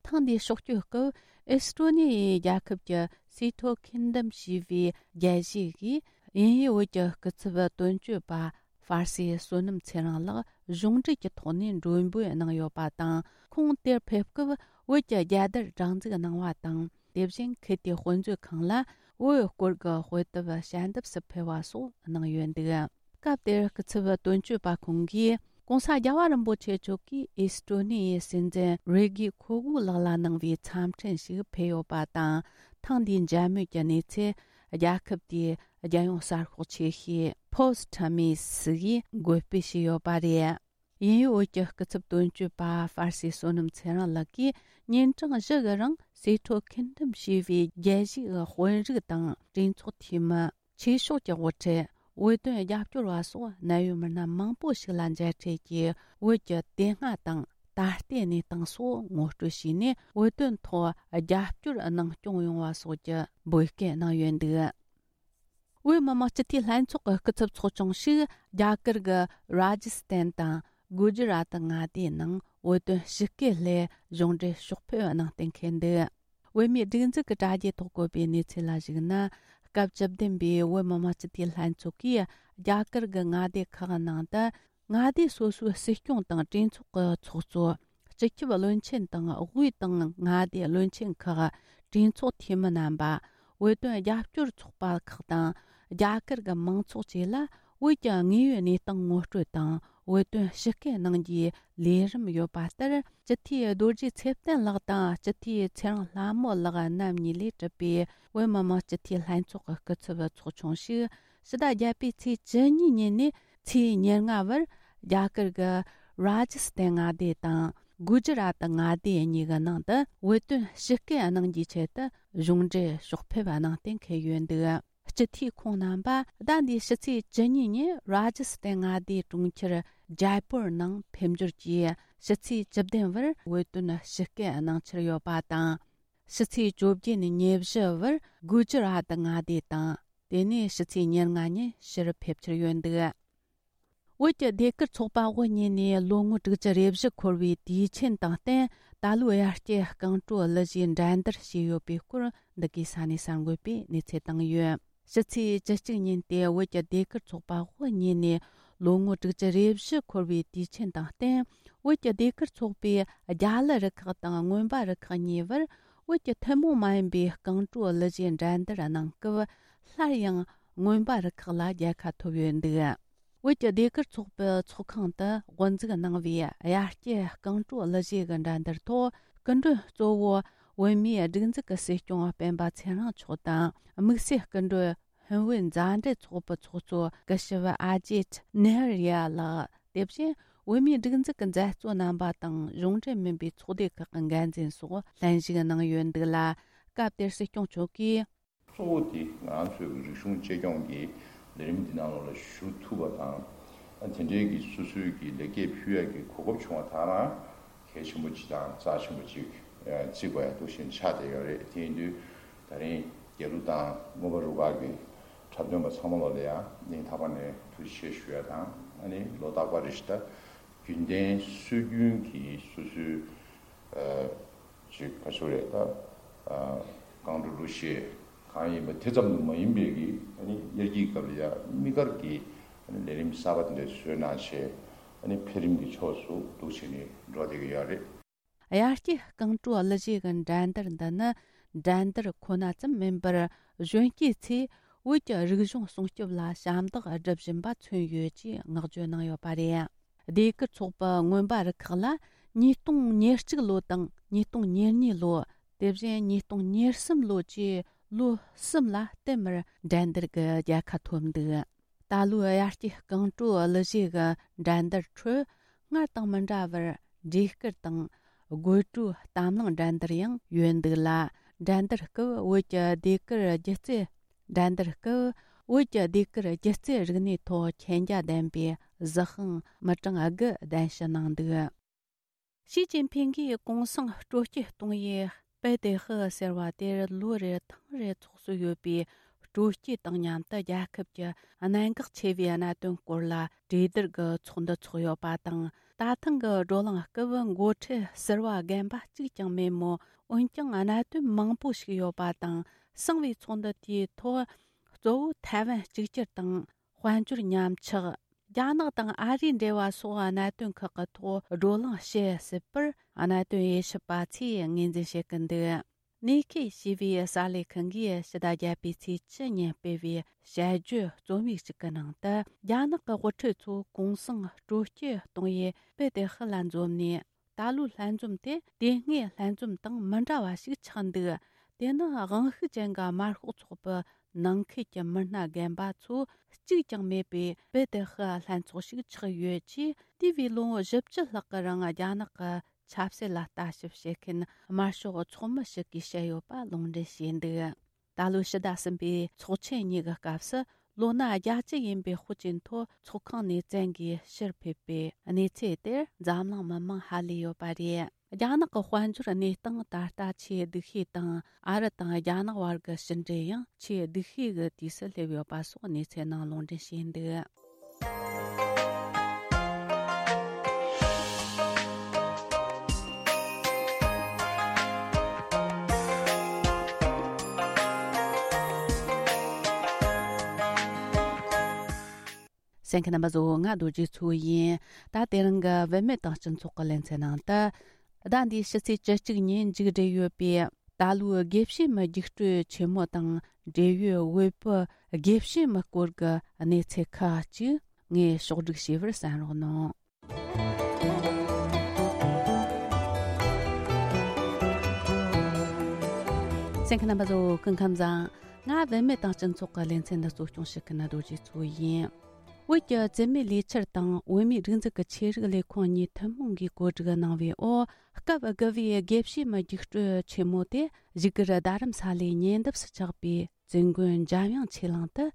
ཐེངས་འདིའི་ཕྱོགས་བསྐྱོད་སྐབས་ཨེས་ཀྲོ་ནི་ཡའི་རྒྱལ་ཁབ་ཀྱི་སི་ཐོ་ཁིན་ཌམ་ཞེས་པའི་རྒྱལ་སྤྱིའི་དབྱིན་ཡུལ་བོད་ཀྱི་སྐུ་ཚབ་དོན་གཅོད་པ་ཧྥ་སེ་བསོད་ནམས་ཚེ་རིང་ལགས་གཞུང་འབྲེལ་གྱི་ཐོག་ནས་མགྲོན་འབོད་གནང་ཡོད་པ་དང་། ཁོང་དེར་ཕེབས་སྐབས་བོད་ཀྱི་རྒྱལ་དར་སྒྲེང་འཛུགས་གནང་བ་དང་། དེ་བཞིན་ཁུལ་དེའི་དཔེ་མཛོད་ཁང་ལ་བོད་སྐོར་གྱི་དཔེ་དེབ་ཞལ་འདེབས་སུ་ཕུལ་བ་སོགས་གནང་ཡོད་འདུག་སྐབས་དེར་སྐུ་ཚབ་དོན་གཅོད་པ་ཁོང་གིས་༸གོང་ས་༸རྒྱལ་བ་རིན་པོ་ཆེ་མཆོག་གིས་ཨེས་ཀྲོ་ནི་ཡའི་སྲིད་འཛིན་རེ་གི་ཁོ་གྷུ་ལགས་ལ་གནང་བའི་འཚམས་འཕྲིན་ཞིག་ཕུལ་ཡོད་པ་དང་། ཐེངས་འདིའི་མཇལ་མོལ་གྱི་གནས་ཚུལ་རྒྱལ་ཁབ་དེའི་རྒྱལ་ཡོངས་གསར་ཤོག་ཆེ་ཤོས་Post Times་གིས་འགོད་སྤེལ་བྱས་ཡོད་པ་རེད། དབྱིན་ཡུལ་བོད་ཀྱི་སྐུ་ཚབ་དོན་གཅོད་པ་ཧྥ་སེ་བསོད་ནམས་ཚེ་རིང་ལགས་ཀྱིས་ཉིན་གྲངས་བཞི་གི་རིང་སི་ཐོ་ཁིན་ཌམ་ཞེས་པའི་རྒྱལ་སྤྱིའི་དཔོན་རིགས་དང་གྲོས་ཚོགས་འཐུས་མི། ཆོས་ཕྱོགས་ཀྱི་དབུ་ཁྲིད། བོད་དོན་རྒྱབ་སྐྱོར་བ་སོགས་གནད་ཡོད་མི་སྣ་མང་པོ་ཞིག་ལ་མཇལ་འཕྲད་ཀྱིས། བོད་ཀྱི་དེ་སྔ་དང་ད་ལྟའི་གནས་སྟངས་སོགས་ངོ་སྤྲོད་བྱས་ནས། བོད་དོན་ཐོག་རྒྱབ་སྐྱོར་གནང་སྐྱོང་ཡོང་བ་སོགས་ཀྱི་འབོད་སྐུལ་གནང་ཡོད་འདུག་བོད་མི་མང་སྤྱི་འཐུས་ལྷན་ཚོགས་ཀྱི་སྐུ་ཚབ་ཚོགས་ཆུང་ཞིག་རྒྱ་གར་གྱི་རཱ་ཇི་སྟན་དང་གུ་ཇི་རཱ་ཏི་མངའ་སྡེའི་ནང་བོད་དོན་ཞི་བརྒལ་སླད་གཞུང་འབྲེལ་ཕྱོགས་ཕེབས་གནང་གཏན་འཁེལ་འདུག་བོད་མིའི་སྒྲིག་འཛུགས་ཀྱི་དྲ་རྒྱའི་ཐོག་བཀོད་པའི་གནས་ཚུལ་ལ་གཞིགས་ན། སྐབས་བཅུ་བདུན་པའི་བོད་མི་མང་སྤྱི་འཐུས་ལྷན་ཚོགས་ཀྱིས་རྒྱ་གར་གྱི་མངའ་སྡེ་ཁག་ནང་དུ། མངའ་སྡེ་སོ་སོའི་སྲིད་སྐྱོང་དང་གྲོས་ཚོགས་ཀྱི་ཚོགས་གཙོ། སྤྱི་ཁྱབ་བློན་ཆེན་དང་དབུས་དང་མངའ་སྡེའི་བློན་ཆེན་ཁག་གྲོས་ཚོགས་འཐུས་མི་རྣམ་པ། བོད་དོན་རྒྱབ་སྐྱོར་ཚོགས་པ་ཁག་དང་། རྒྱ་གར་གྱི་མང་ཚོགས་བཅས་ལ་བོད་ཀྱི་དངོས་ཡོད་གནས་སྟངས་ངོ་སྤྲོད་དང་། བོད་དོན་ཞི་བརྒལ་གནང་རྒྱུའི་ལས་རིམ་ཡོད་པ་ལྟར། སྤྱི་འཐུས་རྡོ་རྗེ་ཚེ་བརྟན་ལགས་དང་སྤྱི་འཐུས་ཚེ་རིང་ལྷ་མོ་ལགས་རྣམ་གཉིས་ལས་གྲུབ་པའི་བོད་མི་མང་སྤྱི་འཐུས་ལྷན་ཚོགས་ཀྱི་སྐུ་ཚབ་ཚོགས་ཆུང་ཞིག་ཕྱི་ཟླ་བརྒྱད་པའི་ཚེས་བཅུ་གཉིས་ཉིན་ནས་ཚེས་ཉེར་ལྔ་བར་རྒྱ་གར་གྱི་རཱ་ཇི་སྟན་མངའ་སྡེ་དང་། གུ་ཇི་རཱ་ཏི་མངའ་སྡེ་གཉིས་ཀྱི་ནང་དུ་བོད་དོན་ཞི་བརྒལ་གནང་རྒྱུའི་ཆེད་དུ་གཞུང་འབྲེལ་ཕྱོགས་ཕེབས་གནང་གཏན་འཁེལ་ཡོད་འདུག་སྤྱི་འཐུས་ཁོང་རྣམ་པ་ཟླ་འདིའི་ཕྱི་ཚེས་བཅུ་གཉིས་ཉིན་རཱ་ཇི་སྟན་མངའ་སྡེའི་གྲོང་ཁྱེར་ཇའི་པུར་ནང་ཕེབས་འབྱོར་གྱིས། ཕྱི་ཚེས་བཅུ་བདུན་བར་བོད་དོན་ཞི་བརྒལ་གནང་འཆར་ཡོད་པ་དང་། ཕྱི་ཚེས་བཅོ་བརྒྱད་ནས་ཉེར་བཞི་བར་གུ་ཇི་རཱ་ཏི་མངའ་སྡེ་དང་། དེ་ནས་ཕྱི་ཚེས་ཉེར་ལྔ་ཉིན་ཕྱིར་ཕེབས་འཆར་ཡོད་འདུག་བོད་ཀྱི་ཟློས་གར་ཚོགས་པ་དབུ་བརྙེས་ནས་ལོ་ངོ་དྲུག་ཅུ་རེ་བཞི་འཁོར་བའི་དུས་ཆེན་དང་བསྟུན། ད་ལོའི་དབྱར་སྐྱེས་རྐང་བྲོ་གླུ་གཞས་འགྲན་བསྡུར་བྱས་ཡོད་པའི་སྐོར་འདི་གའི་ས་གནས་གསར་འགོད་པས་གནས་ཚུལ་བཏང་ཡོད། ཕྱི་ཚེས་བཅུ་གཅིག་ཉིན་ཏེ་བོད་ཀྱི་ཟློས་གར་ཚོགས་པ་དབུ་བརྙེས་ནས་ལོ་ངོ་དྲུག་ཅུ་རེ་བཞི་འཁོར་བའི་དུས་ཆེན་དང་བསྟུན། བོད་ཀྱི་ཟློས་གར་ཚོགས་པས་རྒྱ་གླུ་རུ་ཁག་དང་མངོན་པ་རུ་ཁག་གཉིས་བར་བོད་ཀྱི་ཐུན་མོང་མ་ཡིན་པའི་རྐང་བྲོ་གླུ་གཞས་འགྲན་བསྡུར་གནང་སྐབས། སླར་ཡང་མངོན་པ་རུ་ཁག་ལ་རྒྱལ་ཁ་ཐོབ་ཡོད་འདུག་བོད་ཀྱི་ཟློས་གར་ཚོགས་པའི་ཚོགས་ཁང་དུ་དབུ་འཛུགས་གནང་བའི་དབྱར་སྐྱེས་རྐང་བྲོ་གླུ་གཞས་ཀྱི་འགྲན་བསྡུར་ཐོག་སྐུ་མགྲོན་གཙོ་བོ་བོད་མིའི་སྒྲིག་འཛུགས་ཀྱི་སྲིད་སྐྱོང་སྤེན་པ་ཚེ་རིང་མཆོག་དང་། དམིགས་བསལ་སྐུ་མགྲོན་ཧུན་བོད་མཛའ་འབྲེལ་ཚོགས་པའི་ཚོགས་གཙོ་སྐུ་ཞབས་ཨ་ཇེད་ནེ་ཧར་ཡ་ལགས། དེ་བཞིན་བོད་མིའི་སྒྲིག་འཛུགས་ཀྱི་མཛད་གཙོ་རྣམ་པ་དང་གཞུང་འབྲེལ་མིན་པའི་ཚོགས་སྡེ་ཁག་གི་འགན་འཛིན་སོགས་ལྷན་ཞུགས་གནང་ཡོད་འདུག་ལ། སྐབས་དེར་སྲིད་སྐྱོང་མཆོག་གིས། གཙོ་བོ་དེ་ང་རང་ཚོའི་རིག་གཞུང་གཅེས་སྐྱོང་གི་ལས་རིམ་འདི་ནང་ལོགས་ལ་ཞུགས་ཐུབ་པ་དང་། དེ་འབྲེལ་གྱི་སོ་སོའི་གི་ལེགས་སྐྱེས་ཕུལ་ཡག་གི་གོ་སྐབས་བྱུང་བ་དེ་རང་གལ་ཆེན་པོ་ཅིག་དང་རྩ་ཆེན་པོ་ཅིག་བརྩི་དགོས་ཡ་འདུག་བཞིན་ཆགས་བསྡད་ཡོད་རེད། དེ་ཡིན་དུས་ད་རིང་རྒྱལ་གླུ་དང་མངོན་པ་རུ་ཁག་གི་འཁྲབ་སྟོན་པ་ཚང་མ་ལོགས་ལ་ཡང་སྙིང་ཐག་པ་ནས་ཐུགས་རྗེ་ཆེ་ཞུ་ཡ་དང་། ཨ་ནི་ལོ་རྟག་པར་རེ་བཞིན་ད་རྒྱུན་ལྡན་སྲོལ་རྒྱུན་གྱི་སོ་སོའི་ཅིག་ག་ཚོད་རེད་ད། རྐང་བྲོ་གླུ་གཞས་གང་ཡིན་པ་དེ་ཙམ་དུ་མ་ཡིན་པའི་གི་ཨ་ནི་དབྱར་སྐྱིད་སྐབས་ལ་ཡ་དམིགས་བཀར་གྱི་ཨ་ནི་ལས་རིམ་གསར་པ་དེ་འདྲ་བཟོས་གནང་བྱས། ཨ་ནི་འཕེལ་རིམ་གྱི་ཕྱོགས་སུ་འདུག་བྱས་ནས་འགྲོ་བསྡད་ཀྱི་ཡོད་རེད། དབྱར་སྐྱེས་རྐང་བྲོ་གླུ་གཞས་ཀྱི་འགྲན་བསྡུར་འདི་ནི་འགྲན་བསྡུར་ཁོ་ན་ཙམ་མིན་པར་གཞོན་སྐྱེས་ཚོས་བོད་ཀྱི་རིག་གཞུང་སྲུང་སྐྱོབ་ལ་ཞབས་འདེགས་སྒྲུབ་བཞིན་པ་མཚོན་ཡོད་ཅེས་བསྔགས་བརྗོད་གནང་ཡོད་པ་རེད། ཟློས་གར་ཚོགས་པ་མངོན་པ་རུ་ཁག་ལ་ཉིས་སྟོང་ཉེར་གཅིག་ལོ་དང་ཉིས་སྟོང་ཉེར་གཉིས་ལོ། དེ་བཞིན་ཉིས་སྟོང་ཉེར་གསུམ་ལོ་བཅས་ལོ་གསུམ་ལ་བསྟུད་མར་འགྲན་བསྡུར་གྱི་རྒྱལ་ཁ་ཐོབ་འདུག་ད་ལོའི་དབྱར་སྐྱེས་རྐང་བྲོ་གླུ་གཞས་ཀྱི་འགྲན་བསྡུར་ཁྲོད་སྔར་དང་མི་འདྲ་བར་བྲིས་སྐུར་དང་དགོད་བྲོའི་གཏམ་གླེང་འགྲན་བསྡུར་ཡང་ཡོད་འདུག་ལ། འགྲན་བསྡུར་སྐབས་བོད་ཀྱི་ཟློས་གར་སྒྱུ་རྩལ། འགྲན་བསྡུར་སྐབས་བོད་ཀྱི་ཟློས་གར་སྒྱུ་རྩལ་རིག་གནས་ཐོག་མཁྱེན་རྒྱ་ལྡན་པའི་གཟི་ཤིང་མི་གྲངས་དགུ་གདན་ཞུ་གནང་འདུག་ཞི་ཅིན་ཕིང་གིས་གུང་སེང་སྤྲོ་སྐྱིད་གཏོང་ཡུལ་པེ་ཏེ་ཧི་ཟེར་བ་དེར་ལོ་རེར་ཐེངས་རེ་ཚོགས་སྲོལ་ཡོད་པའི་སྤྲོ་སྐྱིད་དང་མཉམ་དུ་རྒྱལ་ཁབ་ཀྱི་གནད་འགག་ཆེ་བའི་གནད་དོན་སྐོར་ལ་གྲོས་བསྡུར་གྱི་ཚོགས་འདུ་འཚོགས་ཡོད་པ་དང་། ད་ཐེངས་ཀྱི་བགྲོ་གླེང་སྐབས་འགོ་ཁྲིད་ཟུར་པ་རྒན་པ་གཅིག་ཀྱང་མེད་མོད། འོན་ཀྱང་གནད་དོན་མང་པོ་ཞིག་ཡོད་པ་དང་། གསང་བའི་ཚོགས་འདུ་དེའི་ཐོག་གཙོ་བོ་ཐའེ་ཝན་གཅིག་གྱུར་དང་། དཔལ་འབྱོར་ཉམས་ཆག་རྒྱ་ནག་དང་ཨ་རིའི་འབྲེལ་བ་སོགས་གནད་དོན་ཁག་གི་ཐོག་བགྲོ་གླེང་བྱེད་སྲིད་པར་གནད་དོན་དབྱེ་ཞིབ་པ་ཚོས་ངོས་འཛིན་བྱེད་ཀྱི་འདུག་ནེ་ཁེ་ཞེས་པའི་གསར་ལས་ཁང་གིས་ཕྱི་ཟླ་བརྒྱད་པའི་ཚེས་བཅུ་ཉིན་སྤེལ་བའི་དཔྱད་བརྗོད་རྩོམ་ཡིག་ཅིག་གི་ནང་དུ། རྒྱ་ནག་གི་དབུ་ཁྲིད་ཚོ་གུང་སེང་སྤྲོ་སྐྱིད་གཏོང་ཡུལ་པེ་ཏེ་ཧི་ལ་འཛོམས་ནས། ད་ལོའི་ལྷན་འཛོམས་དེ་དེ་སྔའི་ལྷན་འཛོམས་དང་མི་འདྲ་བ་ཞིག་ཆགས་འདུག་དེ་ནི་དབང་ཤུགས་ཅན་གྱི་དམར་ཤོག་ཚོགས་པའི་ནང་ཁུལ་གྱི་མི་སྣ་རྒན་པ་ཚོ་གཅིག་ཀྱང་མེད་པའི་པེ་ཏེ་ཧི་ལྷན་ཚོགས་ཤིག་ཆགས་ཡོད་ཅེས། དེ་བས་ལོ་ངོ་བཞི་བཅུ་ལྷག་གི་རིང་རྒྱ་ནག་གི་ཆབ་སྲིད་ལ་ལྟ་ཞིབ་བྱེད་མཁན་དམར་ཤོག་ཚོགས་མི་ཞིག་གིས་བཤད་ཡོད་པ་ལུང་འདྲེན་བྱས་འདུག་ད་ལོའི་ཕྱི་ཟླ་གསུམ་པའི་ཚོགས་ཆེན་གཉིས་ཀྱི་སྐབས་སུ། ལོ་ན་བརྒྱད་ཅུ་ཡིན་པའི་ཧུའུ་ཅིན་ཐོ་ཚོགས་ཁང་ནས་བཙན་གྱིས་ཕྱིར་ཕེབས་པའི་གནས་ཚུལ་དེར་འཛམ་གླིང་མི་མང་ཧ་ལས་ཡོད་པ་རེད། རྒྱ་ནག་གི་དཔལ་འབྱོར་གནས་སྟངས་ད་ལྟ་ཆེས་སྡུག་ཤོས་དང་། ཨ་རི་དང་རྒྱ་ནག་བར་གྱི་ཕྱི་འབྲེལ་ཡང་ཆེས་སྡུག་ཤོས་ཀྱི་དུས་སུ་སླེབས་ཡོད་པ་སོགས་གནས་ཚུལ་ནང་ལུང་འདྲེན་བྱས་འདུག་གསན་མཁན་རྣམ་པ་ཚོ། ང་རྡོ་རྗེ་མཚོ་ཡིན། ད་དེ་རིང་གི་བུད་མེད་དང་སྤྱི་ཚོགས་ཀྱི་ལེ་ཚན་ནང་དུ། ཟླ་འདིའི་ཕྱི་ཚེས་བཅུ་གཅིག་ཉིན་མཇུག་སྒྲིལ་ཡོད་པའི་ད་ལོའི་དགེ་བཤེས་མའི་རྒྱུགས་སྤྲོད་ཆེན་མོ་དང་འབྲེལ་ཡོད་དབུས་པའི་དགེ་བཤེས་མའི་སྐོར་གྱི་གནས་ཚུལ་ཁག་ཅིག་ངས་ཕྱོགས་སྒྲིག་བྱས་པར་གསན་རོགས་གནང་། གསན་མཁན་རྣམ་པ་ཚོ། སྐུ་ཁམས་བཟང་། ང་བུད་མེད་དང་སྤྱི་ཚོགས་ཀྱི་ལེ་ཚན་འདི་གཙོ་སྐྱོང་བྱེད་མཁན་རྡོ་རྗེ་མཚོ་ཡིན། བོད་ཀྱི་བཙུན་མའི་ལས་འཆར་དང་བོད་མིའི་སྒྲིག་འཛུགས་ཀྱི་ཆོས་རིག་ལས་ཁུངས་གཉིས་ཐུན་མོང་གིས་གོ་སྒྲིག་གནང་བའི་འོག་སྐབས་དགུ་པའི་དགེ་བཤེས་མའི་རྒྱུགས་སྤྲོད་ཆེན་མོ་དེ་བཞུགས་སྒར་རྡ་རམ་ས་ལའི་ཉེ་འདབས་སུ་ཆགས་པའི་བཙུན་དགོན་འཇམ་དབྱངས་ཆོས་གླིང་དུ་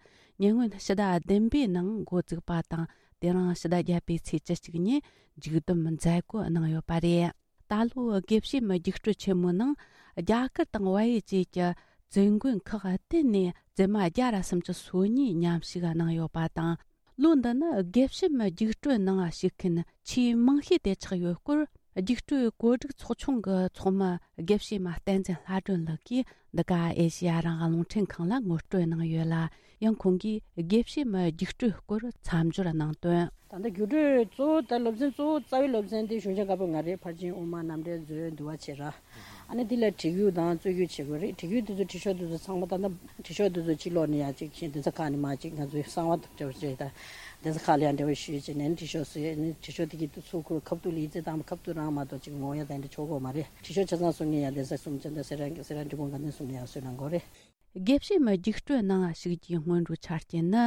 ཉེ་སྔོན་ཕྱི་ཟླ་བདུན་པའི་ནང་འགོ་བཙུགས་པ་དང་། དེ་རིང་ཕྱི་ཟླ་བརྒྱད་པའི་ཚེས་བཅུ་གཅིག་ཉིན་མཇུག་བསྡོམས་མཛད་སྒོ་གནང་ཡོད་པ་རེད། ད་ལོའི་དགེ་བཤེས་མའི་རྒྱུགས་སྤྲོད་ཆེན་མོའི་ནང་རྒྱ་གར་དང་བལ་ཡུལ་བཅས་ཀྱི་བཙུན་དགོན་ཁག་བསྟན་ནས་བཙུན་མ་བརྒྱ་ར་སུམ་ཅུ་སོ་གཉིས་མཉམ་ཞུགས་གནང་ཡོད་པ་དང་། ལོ་འདི་ནི་དགེ་བཤེས་མའི་རྒྱུགས་སྤྲོད་ནང་ཞུགས་མཁན་ཆེས་མང་ཤོས་དེ་ཆགས་ཡོད་སྐོར་ རྒྱུགས་སྤྲོད་བཀོད་སྒྲིག་ཚོགས་ཆུང་གི་ཚོགས་མི་དགེ་བཤེས་མ་བསྟན་འཛིན་ལྷ་སྒྲོན་ལགས་ཀྱིས་འདི་ག་ཨེ་ཤེ་ཡ་རང་དབང་རླུང་འཕྲིན་ཁང་ལ་ངོ་སྤྲོད་གནང་ཡོད་ལ། ཡང་ཁོང་གིས་དགེ་བཤེས་མའི་རྒྱུགས་སྤྲོད་སྐོར་མཚམས་སྦྱོར་གནང་དོན། ད་ལྟ་རྒྱུགས་སྤྲོད་གཙོ་བོ་ད་སློབ་ཚན་གཙོ་བོ་རྩ་བའི་སློབ་ཚན་དེ་གཞུང་ཆེན་བཀའ་པོད་ལྔ་རེད། ཕར་ཕྱིན་དབུ་མ་རྣམ་འགྲེལ་མཛོད་འདུལ་བ་བྱེད་ར། ཨ་ནི་དེ་ལ་བྲིས་རྒྱུགས་དང་རྩོད་རྒྱུགས་བྱེད་དགོས་རེད། བྲིས་རྒྱུགས་དེ་ཚོ་བྲིས་ཤོག་དེ་ཚོ་ཚང་མ་ད་ལྟ་བྲིས་ཤོག་དེ་ཚོ་གཅིག་ཀློག་ནས་ཡ་གཅིག་བྱས་གདན་ས་ཁག་ནས་མ་གཅིག་ང་ཚོའི་གསང་བ་དང་འབྲེལ་བ་བྱས་ད་གདན་ས་ཁག་ལ་ཡང་འབྲེལ་བ་ཞུས་བྱས་ནས་བྲིས་ཤོག་ཟེར་ནས་བྲིས་ཤོག་དེ་གི་ཚུར་ཁུར་ཁ་ཐུག་ལ་ཡིག་ཚད་དང་ཁ་ཐུག་རང་མ་གཏོགས་གཅིག་ངོ་ཡ་དེ་འདྲ་ཆོག་གོ་མ་རེད། བྲིས་ཤོག་ཆ་ཚང་སོང་ངས་ཡ་གདན་ས་གསུམ་ཅན་དང་སེ་ར་སེ་ར་འབྲི་གུང་དགའ་ལྡན་གསུམ་ནས་ཡ་གསོལ་གནང་དགོས་རེད། དགེ་བཤེས་མའི་རྒྱུགས་སྤྲོད་ནང་ཞུགས་རྒྱུའི་སྔོན་འགྲོའི་ཆ་རྐྱེན་ནི།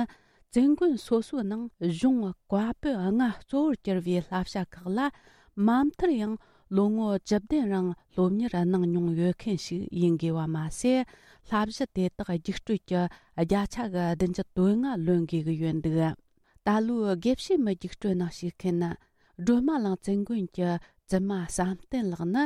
བཙུན་དགོན་སོ་སོའི་ནང་གཞུང་བཀའ་པོད་ལྔ་གཙོ་བོར་གྱུར་བའི་བསླབ་བྱ་ཁག་ལ། མ་མཐར་ཡང་ལོ་ངོ་བཅུ་བདུན་རིང་སློབ་གཉེར་གནང་མྱོང་ཡོད་མཁན་ཞིག་ཡིན་དགོས་པ་མ་ཟད། བསླབ་གཞི་དེ་དག་རྒྱུགས་སྤྲོད་ཀྱི་བརྒྱ་ཆ་གི་བདུན་ཅུ་དོན་ལྔ་ལོན་དགོས་ཀྱི་ཡོད་འདུག་ད་ལོའི་དགེ་བཤེས་མའི་རྒྱུགས་སྤྲོད་ནང་ཞུགས་མཁན་ནི། སྒྲོལ་མ་གླིང་བཙུན་དགོན་གྱི་བཙུན་མ་བསམ་གཏན་ལགས་ནི།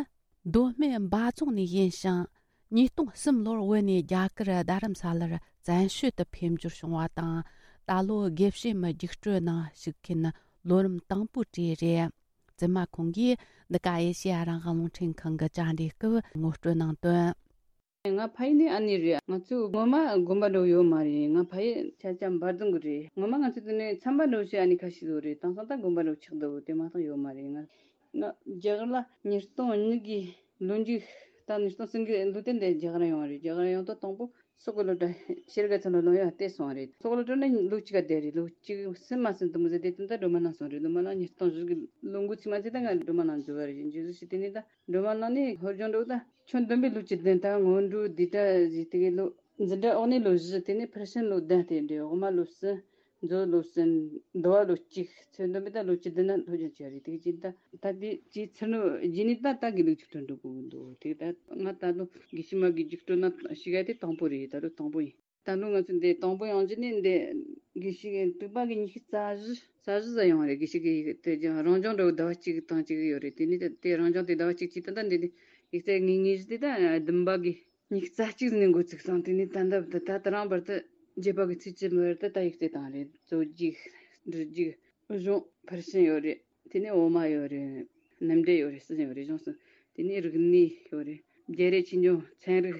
མདོ་སྨད་འབའ་རྫོང་ནས་ཡིན་ཞིང་། ཉིས་སྟོང་གསུམ་ལོར་བོད་ནས་རྒྱ་གར་རྡ་རམ་ས་ལར་བཙན་བྱོལ་དུ་ཕེབས་འབྱོར་བྱུང་བ་དང་། ད་ལོ་དགེ་བཤེས་མའི་རྒྱུགས་སྤྲོད་ནང་ཞུགས་མཁན་ལོ་རིམ་དང་པོ་དེ་རེད། བཙུན་མ་ཁོང་གིས་འདི་ག་ཨེ་ཤེ་ཡ་རང་དབང་རླུང་འཕྲིན་ཁང་གི་བཅར་འདྲིའི་སྐབས་ངོ་སྤྲོད་གནང་དོན། ང་ཕ་ཡུལ་ནི་ཨ་ནི་རེད། ང་ཚོ་ངོ་མ་དགོན་པ་འགྲོ་ཡོད་མ་རེད། ང་ཕ་ཡུལ་ཆ་ཆ་འབའ་རྫོང་གི་རེད། ངོ་མ་ང་ཚོ་དེ་ནས་ཚན་པ་འགྲོ་བྱེད་ཨ་ནི་ཁ་ཤས་ཡོད་རེད། དེང་སང་ད་དགོན་པ་འགྲོ་ཆགས་འདུག་དེ་མ་གཏོགས་ཡོད་མ་རེད། ང་ང་རྒྱ་གར་ལ་ཉིས་སྟོང་གཉིས་གི་ལོ་མཇུག་ད་ཉིས་སྟོང་གསུམ་གི་ལོ་དེ་འདི་རྒྱ་གར་ཡོང་བ་རེད། རྒྱ་གར་ཡོང་དུས་དང་པོ་སོག་པོ་སློབ་གྲྭ་ཤེལ་དཀར་ཚང་ལ་ལོ་ཡང་བལྟས་སོང་བ་རེད། སོག་པོ་སློབ་གྲྭ་ནས་ལོ་གཅིག་ག་བསྡད་རེད། ལོ་གཅིག་ཟིན་མ་ཟིན་དུ་མི་ཟེར་དེ་དུས་ད་སྒྲོལ་མ་གླིང་སོང་རེད། སྒྲོལ་མ་གླིང་ཉིས་སྟོང་བཞི་གི་ལོ་འགོ་ཚུན་མ་ཚད་ད་ང་སྒྲོལ་མ་གླིང་འཛུལ་བ་རེད། འཛུལ་ཟིན་ཞིག་དེ་ནས་ད་སྒྲོལ་མ་གླིང་ནས་ཧོར་སྦྱོང་འགྲོ་ད་ཁྱོན་བསྡོམས་པའི་ལོ་བཅུ་བདུན། ད་སྔོན་འགྲོ་འདི་གྲ་ཟིག་དེ་གི་ལོ་འཛིན་གྲྭ་འོག་ནས་ལོ་བཞི། དེ་ནས་ཕར་ཕྱིན་ལོ་བདུན་དེ་འདྲ། འོག་མ་ལོ་གསུམ། མཛོ་ལོ་གསུམ། འདུལ་བ་ལོ་གཅིག། ཚོད་འདོན་པའི་ད་ལོ་བཅུ་བདུན་ན་སློབ་སྦྱོང་བྱས་རེད། དེ་གི་ད་ད་དེ་ཅིའི་ཚུར་ནོ་རྗེས་ནས་ད་ད་དགེ་ལུགས་རྒྱུགས་སྤྲོད་འགྲོ་དགོས་འདུག་དེ་ད་ང་ད་ལོ་དགེ་བཤེས་མ་གི་རྒྱུགས་སྤྲོད་ན་ཞིག་ཨ་དེ་དང་པོ་རེད། ད་ལོ་དང་པོ་ཡིན། ད་ལོ་ང་ཚོ་འདི་དང་པོ་ཡོང་རྒྱུ་ནི་འདི་དགེ་བཤེས་གི་དྲུག་པ་གི་ཉི་ཤུ་རྩ་བཞི་རྩ་བཞི་ཙམ་ཡོང་རེད། དགེ་བཤེས་གི་ཡིག་དེ་ཀྱང་རང་སྦྱོང་འགྲོ་ཟླ་བ་གཅིག་དང་གཅིག་ཡོད་རེད། དེ་ནི་དེ་རང་སྦྱོང་དེ་ཟླ་བ་གཅིག་གཅིག་ད་ལྟ་འདི་ནི་ཡིག་ཚད་ངེས་ངེས་ཞིག་དེ་ད་བདུན་པ་གི་ཉི་ཤུ་རྩ་གཅིག་ནས་འགོ་ཚུགས་སོང་། དེ་ནས་ད་ལྟ་བར་དུ་ད་ད་རང་བར་དུ་བརྒྱད་པ་གི་ཚེས་བཅུ་བར་དུ་ད་ཡིག་ཚད་བཏང་རེད། རྩོད་རྒྱུགས། འབྲི་རྒྱུགས། གཞུང་ཕར་ཕྱིན་ཡོད་རེད། དེ་ནས་འོག་མ་ཡོད་རེད། རྣམ་འགྲེལ་ཡོད་རེད། གསུམ་ཡོད་རེད། གཞུང་གསུམ། དེ་ནས་རིག་གནས་ཡོད་རེད། རྒྱལ་རབས་ཆོས་འབྱུང་ཚན་རིག་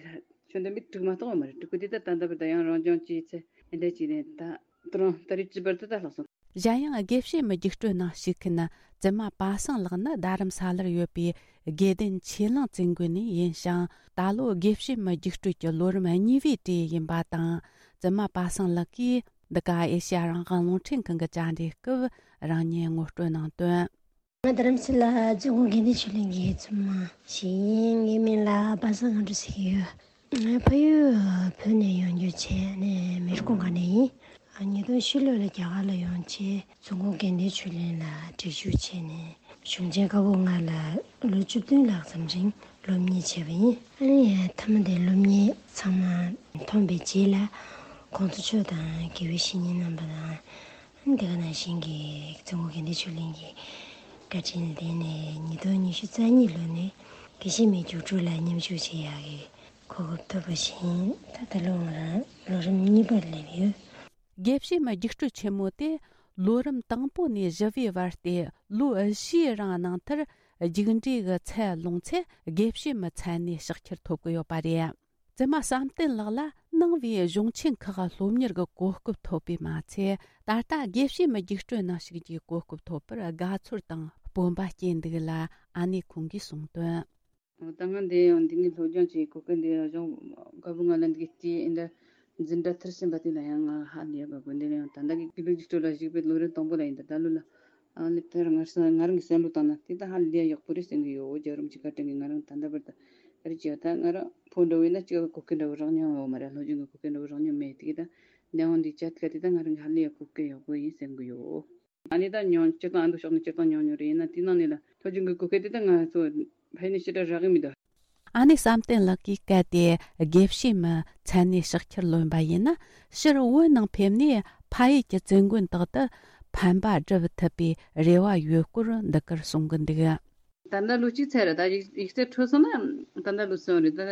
ཆོས་འདོན་པའི་དྲུག་མ་གཏོགས་ཡོད་མ་རེད། དྲུག་གི་དེ་ད་ད་ལྟ་བར་དུ་ཡང་རང་སྦྱོང་བྱས་ཚེ་འདི་འདྲ་བྱས་ནས་ད་ད་རུང་ད་རེས་བཅུ་བར་དུ་ད་ལྷག་སོང་། གཞན་ཡང་དགེ་བཤེས་མའི་རྒྱུགས་སྤྲོད་ནང་ཞུགས་མཁན་བཙུན་མ་པ་སངས་ལགས་ནི་རྡ་རམ་ས་ལར་ཡོད་པའི་དགེ་ལྡན་ཆོས་གླིང་བཙུན་དགོན་ནས་ཡིན་ཞིང་། ད་ལོ་དགེ་བཤེས་མའི་རྒྱུགས་སྤྲོད་ཀྱི་ལོ་རིམ་གཉིས་པའི་གྲས་ཡིན་པ་དང་། བཙུན་མ་པ་སངས་ལགས་ཀྱིས་འདི་ག་ཨེ་ཤེ་ཡ་རང་དབང་རླུང་འཕྲིན་ཁང་གི་བཅར་འདྲིའི་སྐབས་རང་ཉིད་ངོ་སྤྲོད་གནང་དོན། ང་རྡ་རམ་ས་ལ་བཙུན་དགོན་དགེ་ལྡན་ཆོས་གླིང་གི་བཙུན་མ་ཞིག་ཡིན། ངའི་མིང་ལ་པ་སངས་ལྔ་སྒྲོལ་ཟེར་གྱི་ཡོད། ང་ཕ་ཡུལ་བོད་ནས་ཡོང་རྒྱུ་བྱས་ནས་མི་རི་ཀོན་ཁ་ནས་ཡིན། ཉིས་སྟོང་བཞི་ལོ་ལ་རྒྱ་གར་ལ་ཡོང་བྱས་བཙུན་དགོན་དགེ་ལྡན་ཆོས་གླིང་ལ་སྒྲིག་ཞུགས་བྱས་ནས་གཞུང་ཆེན་བཀའ་པོད་ལྔ་ལ་ལོ་བཅུ་བདུན་ལྷག་ཙམ་རིང་སློབ་གཉེར་བྱས་པ་ཡིན། ཨ་ནི་མཐའ་མ་དེ་སློབ་གཉེར་ཚང་མ་ཐོན་པའི་རྗེས་ལ་གོང་ས་མཆོག་དང་དགེ་བའི་བཤེས་གཉེན་རྣམ་པ་དང་། དེ་ག་ནང་བཞིན་གྱི་བཙུན་དགོན་དགེ་ལྡན་ཆོས་གླིང་གི་བཀའ་དྲིན་ལ་བརྟེན་ནས་ཉིས་སྟོང་ཉི་ཤུ་རྩ་གཉིས་ལོ་ནས་དགེ་བཤེས་མའི་རྒྱུགས་སྤྲོད་ལ་མཉམ་ཞུགས་བྱེད་ཡག་གི་གོ་སྐབས་ཐོབ་པ་བཞིན་ད་ལྟ་ལོ་ང་རང་ལོ་རིམ་གཉིས་པར་སླེབས་ཡོད། དགེ་བཤེས་མའི་རྒྱུགས་སྤྲོད་ཆེན་མོ་དེ་ལོ་རིམ་དང་པོ་ནས་བཞི་པའི་བར་ཏེ་ལོ་བཞིའི་རིང་གནང་མཐར་རྒྱུགས་འབྲས་ཀྱི་ཚད་ལོངས་ཚེ་དགེ་བཤེས་མའི་མཚན་གནས་ཕྱག་འཁྱེར་ཐོབ་ཀྱི་ཡོད་པ་རེད། བཙུན་མ་བསམ་གཏན་ལགས་ལ་ནང་པའི་གཞུང་ཆེན་ཁག་སློབ་གཉེར་གྱི་གོ་སྐབས་ཐོབ་པས་མ་ཚད། ད་ལྟ་དགེ་བཤེས་མའི་རྒྱུགས་སྤྲོད་ནང་ཞུགས་རྒྱུའི་གོ་སྐབས་ཐོབ་པར་དགའ་ཚོར་དང་སྤོབས་པ་སྐྱེས་འདུག་ལ། ཨ་ནེ་ཁོང་གིས་གསུངས་དོན། ད་ང་འདི་ཡང་འདི་ནས་སློབ་སྦྱོང་བྱེད་གོ་སྐབས་འདི་ཡང་གཞུང་བཀའ་པོད་ལྔ་ལ་འདི་གི་སྟེ་འདི་འཛིན་གྲྭ་མཐར་ཕྱིན་པ་དེ་ལ་ཡང་ང་ཧ་ལས་པ་དགོས། འདི་ལ་ཡང་ད་ལྟ་གི་དགེ་ལུགས་རྒྱུགས་སྤྲོད་ལ་ཞུགས་པའི་ལོ་རིམ་དང་པོ་ལ་ཡིན། ད་ད་ལོ་ལ་ཨ་ནི་དེར་ང་ང་རང་གི་བསམ་བློ་བཏང་ན་དེ་ད་ཧ་ལས་ཡག་པོ་རེད་བསམ་གི་ཡོད། རྒྱལ་རབས་ཀྱི་བཀའ་དྲིན་གྱིས་ང་རང་ད་ལྟ་བར་དུ་ཨ་རི་ཅི་ཡོད་ད་ང་རང་ཕོ་འདྲ་བོ་ཡིན་ན་ཅི་ག་གོ་སྐབས་འདྲ་བོ་རག་མྱོང་ཡོད་མ་རེད། སློབ་སྦྱོང་གི་གོ་སྐབས་འདྲ་བོ་རག་མྱོང་མེད། དེ་གི་ད་འདས་ཡོང་འདི་བྱ་དཀའ་དེ་ད་ང་རང་གི་ཧ་ལས་ཡག་གོ་སྐབས་ཡག་པོ་ཡིན་བསམ་གི་ཡོད། ཨ་ནི་ད་ཉོན་སྤྱིར་བཏང་ཨ་མདོ་ཕྱོགས་ནས་སྤྱིར་བཏང་ཉོན་ཉོན་རེད། ཡིན་ན་དེའི་ནང་ནས་ལ་སློབ་སྦྱོང་གི་གོ་སྐབས་དེ་ད་ང་ཚོ་ཕ་ཡུལ་ནས་ཞེ་དྲག་རག་གི་མི་འདུག་ཨ་ནེ་བསམ་གཏན་ལགས་ཀྱིས་གལ་ཏེ་དགེ་བཤེས་མའི་མཚན་གནས་ཕྱག་འཁྱེར་ལོན་པ་ཡིན་ན། ཕྱིར་བོད་ནང་ཕེབས་ནས་ཕ་ཡུལ་གྱི་བཙུན་དགོན་དག་ཏུ་ཕན་པ་སྒྲུབ་ཐུབ་པའི་རེ་བ་ཡོད་སྐོར་འདི་གར་གསུང་གི་འདུག་ད་ལྟ་ལོ་གཅིག་ཚར་རེད། ད་ཡིག་ཡིག་ཚད་འཕྲོད་སོང་ན་ད་ལྟ་ལོ་གསུམ་རེད། ད་ལྟ་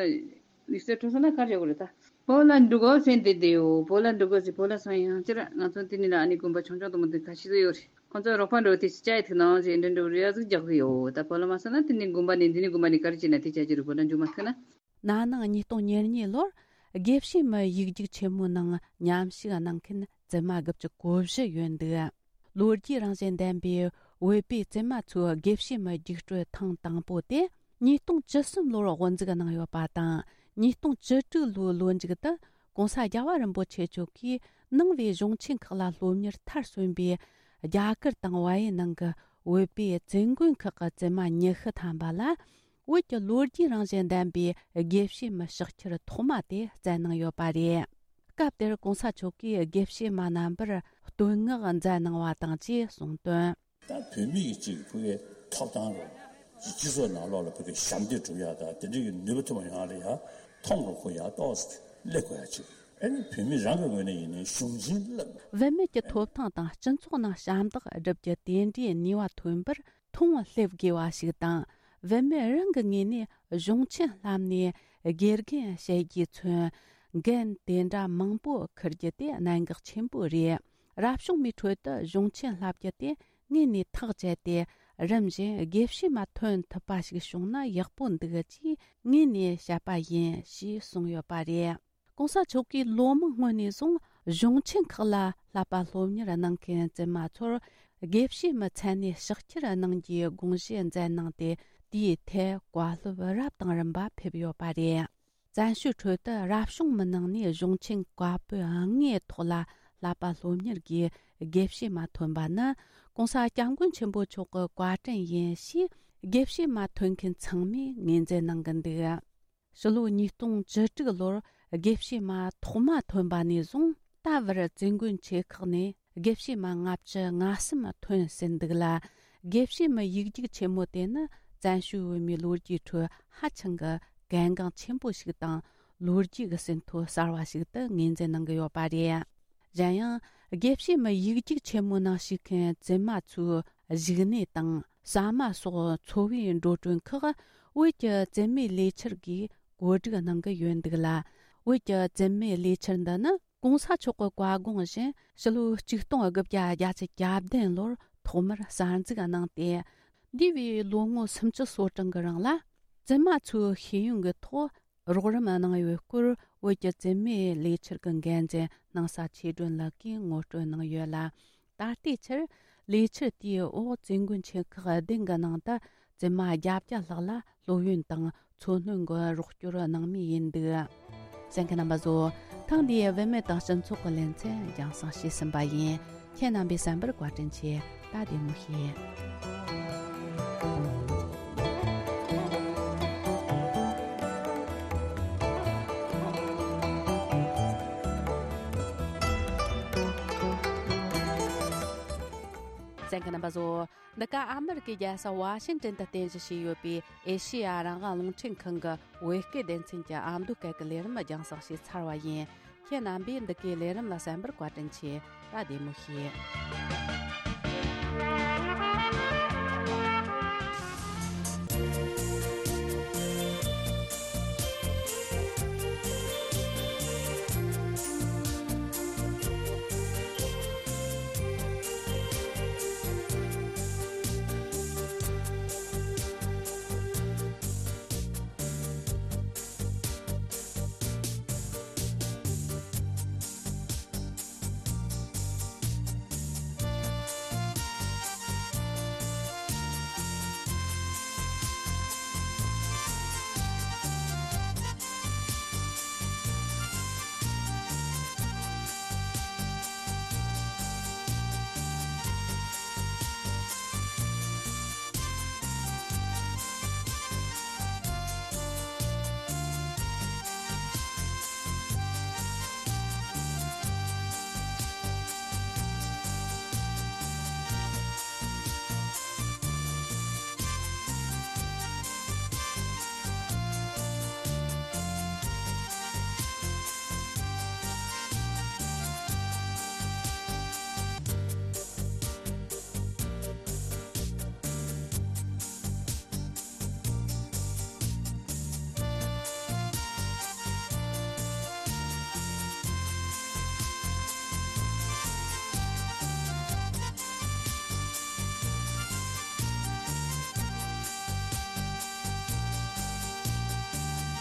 ཡིག་ཚད་འཕྲོད་སོང་ན་ག་རེ་བྱེད་དགོས་རེད། ད་བོད་ལ་འགྲོ་དགོས་ཟེར་འདི་བསྡད་ཡོད། བོད་ལ་འགྲོ་དགོས་ཟེར་བོད་ལ་སོང་ཡང་ཅི་ར་ང་ཚོ་འདི་ནས་ལ་ཨ་ནི་དགོན་པ་ཆུང་ཆུང་དུ་མ་འདི་ཁ་ཤས་ཡོད་རེད། ཁོང་ཚོ་རོགས་པ་འགྲོ་དེ་ཅི་བྱ་ཡི་ཐུག་ནའང་ཅི་འདྲ་འགྲོ་རེ་ཡ་ཟིག་རྒྱག་གི་ཡོད། ད་བོད་ལ་མ་སོང་ན་དེ་ནི་དགོན་པ་ནས་འདི་ནི་དགོན་པ་ནས་གར་གྱི་ན་དེ་བྱ་གྱི་རུ་བོད་ལ་འཇུ་མ་ཐུག་ན། ན་ནིང་ཉིས་སྟོང་ཉེར་གཉིས་ལོར་དགེ་བཤེས་མའི་ཡིག་རྒྱུགས་ཆེན་མོའི་ནང་མཉམ་ཞུགས་གནང་མཁན་བཙུན་མ་དགུ་བཅུ་གོ་བཞི་ཡོད་འདུག། ལོ་རྒྱུས་རང་བཞིན་ལྡན་པའི་བོད་པའི་བཙུན་མ་ཚོའི་དགེ་བཤེས་མའི་རྒྱུགས་སྤྲོད་ཐེངས་དང་པོ་དེ་ཉིས་སྟོང་བཅུ་གསུམ་ལོར་དབུ་འཛུགས་གནང་ཡོད་པ་དང་། ཉིས་སྟོང་བཅུ་དྲུག་ལོའི་ལོ་མཇུག་ཏུ་༸གོང་ས་༸རྒྱལ་བ་རིན་པོ་ཆེ་མཆོག་གིས་ནང་པའི་གཞུང་ཆེན་ཁག་ལ་སློབ་གཉེར་མཐར་སོན་པའི་རྒྱ་གར་དང་བལ་ཡུལ་ནང་གི་བོད་པའི་བཙུན་དགོན་ཁག་གི་བཙུན་མ་ཉི་ཤུ་ཐམ་པ་ལ། བོད་ཀྱི་ལོ་རྒྱུས་རང་བཞིན་ལྡན་པའི་དགེ་བཤེས་མའི་ཕྱག་འཁྱེར་ཐོག་མ་དེ་བསྩལ་གནང་ཡོད་པ་རེད། སྐབས་དེར་༸གོང་ས་མཆོག་གིས་དགེ་བཤེས་མ་རྣམ་པར་བསྟོད་བསྔགས་མཛད་གནང་བ་དང་བཅས་གསུངས་དོན། ད་བོད་མི་ཡི་གཅིག་ཕ་གིའི་ཐོབ་ཐང་རེད། སྤྱི་ཚོགས་ནང་ལོགས་ལ་ཕ་གིའི་ཞབས་འདེགས་སྒྲུབ་ཡག་དང་དེ་འདྲའི་གི་ནུས་པ་ཐོན་པ་ཡོང་ཡག་ལ་ཡ་མཐོང་རུ་ཁོ་ཡག་ཏོག་ཙམ་སླེབས་དགོས་ཡག་ཅིག་ཨ་ནི་བོད་མི་རང་གི་ངོས་ནས་ཡིན་ནའི་གཞུང་ཆེན་བསླབ། བུད་མེད་ཀྱི་ཐོབ་ཐང་དང་སྤྱི་ཚོགས་ནང་ཞབས་འདེགས་སྒྲུབ་རྒྱུ་དེ་འདྲའི་ནུས་པ་ཐོན་པར་མཐོང་སླེབས་དགོས་པ་ཞིག་དང་། བུད་མེད་རང་གི་ངོས་ནས་གཞུང་ཆེན་བསླབས་ནས་དགེ་རྒན་བྱེད་རྒྱུས་མཚོན། འགན་དེ་འདྲ་མང་པོ་འཁུར་རྒྱུ་དེ་གནད་འགག་ཆེན་པོ་རེད། རབ་བྱུང་མའི་ཁྲོད་དུ་གཞུང་ཆེན་བསླབ་རྒྱུ་དེ་ངོས་ནས་ཐག་བཅད་དེ། རིམ་བཞིན་དགེ་བཤེས་མ་ཐོན་ཐུབ་པ་ཞིག་བྱུང་ན་ཡག་པོ་འདུག་ཅེས་ངོས་ནས་བཤད་པ་ཡིན་ཞེས་གསུངས་ཡོད་པ་རེད། ༸གོང་ས་མཆོག་གིས་ལོ་མང་སྔོན་ནས་བཟུང་གཞུང་ཆེན་ཁག་ལ་བསླབ་པ་སློབ་གཉེར་གནང་མཁན་བཙུན་མ་ཚོར་དགེ་བཤེས་མའི་མཚན་གནས་ཕྱག་འཁྱེར་གནང་རྒྱུའི་དགོངས་བཞེས་མཛད་གནང་སྟེ། དེའི་ཐད་བཀའ་སློབ་རབ་དང་རིམ་པ་ཕེབས་ཡོད་པ་རེད། བཙན་བྱོལ་ཁྲོད་དུ་རབ་བྱུང་མི་ནང་ནས་གཞུང་ཆེན་བཀའ་པོད་ལྔའི་ཐོག་ལ་བསླབ་པ་སློབ་གཉེར་གྱི་དགེ་བཤེས་མ་ཐོན་པ་ནི་༸གོང་ས་༸སྐྱབས་མགོན་ཆེན་པོ་མཆོག་གི་བཀའ་དྲིན་ཡིན་ཞེས་དགེ་བཤེས་མ་ཐོན་མཁན་ཚང་མས་ངོས་འཛིན་གནང་གི་འདུག། ཕྱི་ལོ་ཉིས་སྟོང་བཅུ་དྲུག་ལོར་དགེ་བཤེས་མ་ཐོག་མ་ཐོན་པ་ནས་བཟུང་ད་བར་བཙུན་དགོན་ཆེ་ཁག་ནས་དགེ་བཤེས་མ་ལྔ་བཅུ་ང་གསུམ་ཐོན་ཟིན་འདུག་ལ། དགེ་བཤེས་མའི་ཡིག་རྒྱུགས་ཆེན་མོ་དེ་ནི་བཙན་བྱོལ་བོད་མིའི་ལོ་རྒྱུས་ཁྲོད་ཧ་ཅང་གི་གལ་འགངས་ཆེན་པོ་ཞིག་དང་། ལོ་རྒྱུས་ཀྱི་ཟིན་ཐོ་གསར་བ་ཞིག་ཏུ་ངོས་འཛིན་གནང་གི་ཡོད་པ་རེད། གཞན་ཡང་། དགེ་བཤེས་མའི་ཡིག་རྒྱུགས་ཆེན་མོའི་ནང་ཞུགས་མཁན་བཙུན་མ་ཚོའི་བཞུགས་གནས་དང་ཟ་མ་སོགས་འཚོ་བའི་འགྲོ་གྲོན་ཁག་བོད་ཀྱི་བཙུན་མའི་ལས་འཆར་གྱིས་བཀོད་སྒྲིག་གནང་གི་ཡོད་འདུག་ལ། བོད་ཀྱི་བཙུན་མའི་ལས་འཆར་འདི་ནི་༸གོང་ས་མཆོག་གི་བཀའ་དགོངས་བཞིན་ཕྱི་ལོ་ཆིག་སྟོང་དགུ་བརྒྱ་བརྒྱད་ཅུ་གྱ་བདུན་ལོར་ཐོག་མར་གསར་འཛུགས་གནང་སྟེ། འདས་པའི་ལོ་ངོ་སུམ་ཅུ་སོ་གྲངས་ཀྱི་རིང་ལ་བཙུན་མ་ཚོའི་ཤེས་ཡོན་གྱི་ཐོག་རོགས་རམ་གནང་ཡོད་སྐོར་བོད་ཀྱི་བཙུན་མའི་ལས་འཆར་གྱི་འགན་འཛིན་སྣང་ས་ཆོས་སྒྲོན་ལགས་ཀྱིས་ངོ་སྤྲོད་གནང་ཡོད་ལ། ད་ལྟའི་ཆར་ལས་འཆར་དེའི་འོག་བཙུན་དགོན་ཆེ་ཁག་བདུན་གྱི་ནང་དུ་བཙུན་མ་བརྒྱད་བརྒྱ་ལྷག་ལ་སློབ་ཡོན་དང་འཚོ་སྣོན་གྱི་རོགས་སྐྱོར་གནང་མུས་ཡིན་འདུག། གསན་མཁན་རྣམ་པ་ཚོ། ཐེངས་འདིའི་བུད་མེད་དང་སྤྱི་ཚོགས་ཀྱི་ལེ་ཚན་རྒྱང་སྲིང་བྱས་ཟིན་པ་ཡིན། ཁྱེད་རྣམ་པས་གསན་པར་བཀའ་དྲིན་ཆེ། ད་བདེ་མོ་བྱོས། གསན་མཁན་རྣམ་པ་ཚོ། འདི་ག་ཨ་མི་རི་ཀའི་རྒྱལ་ས་ཝ་ཤིང་ཏན་དུ་རྟེན་གཞི་བྱས་ཡོད་པའི་ཨེ་ཤེ་ཡ་རང་དབང་རླུང་འཕྲིན་ཁང་གི་བོད་སྐད་སྡེ་ཚན་གྱི་ཨ་མདོ་སྐད་ཀྱི་ལས་རིམ་རྒྱང་སྲིང་བྱས་ཚར་བ་ཡིན། ཁྱེད་རྣམ་པས་འདི་གའི་ལས་རིམ་ལ་གསན་པར་བཀའ་དྲིན་ཆེ། ད་བདེ་མོ་བྱོས།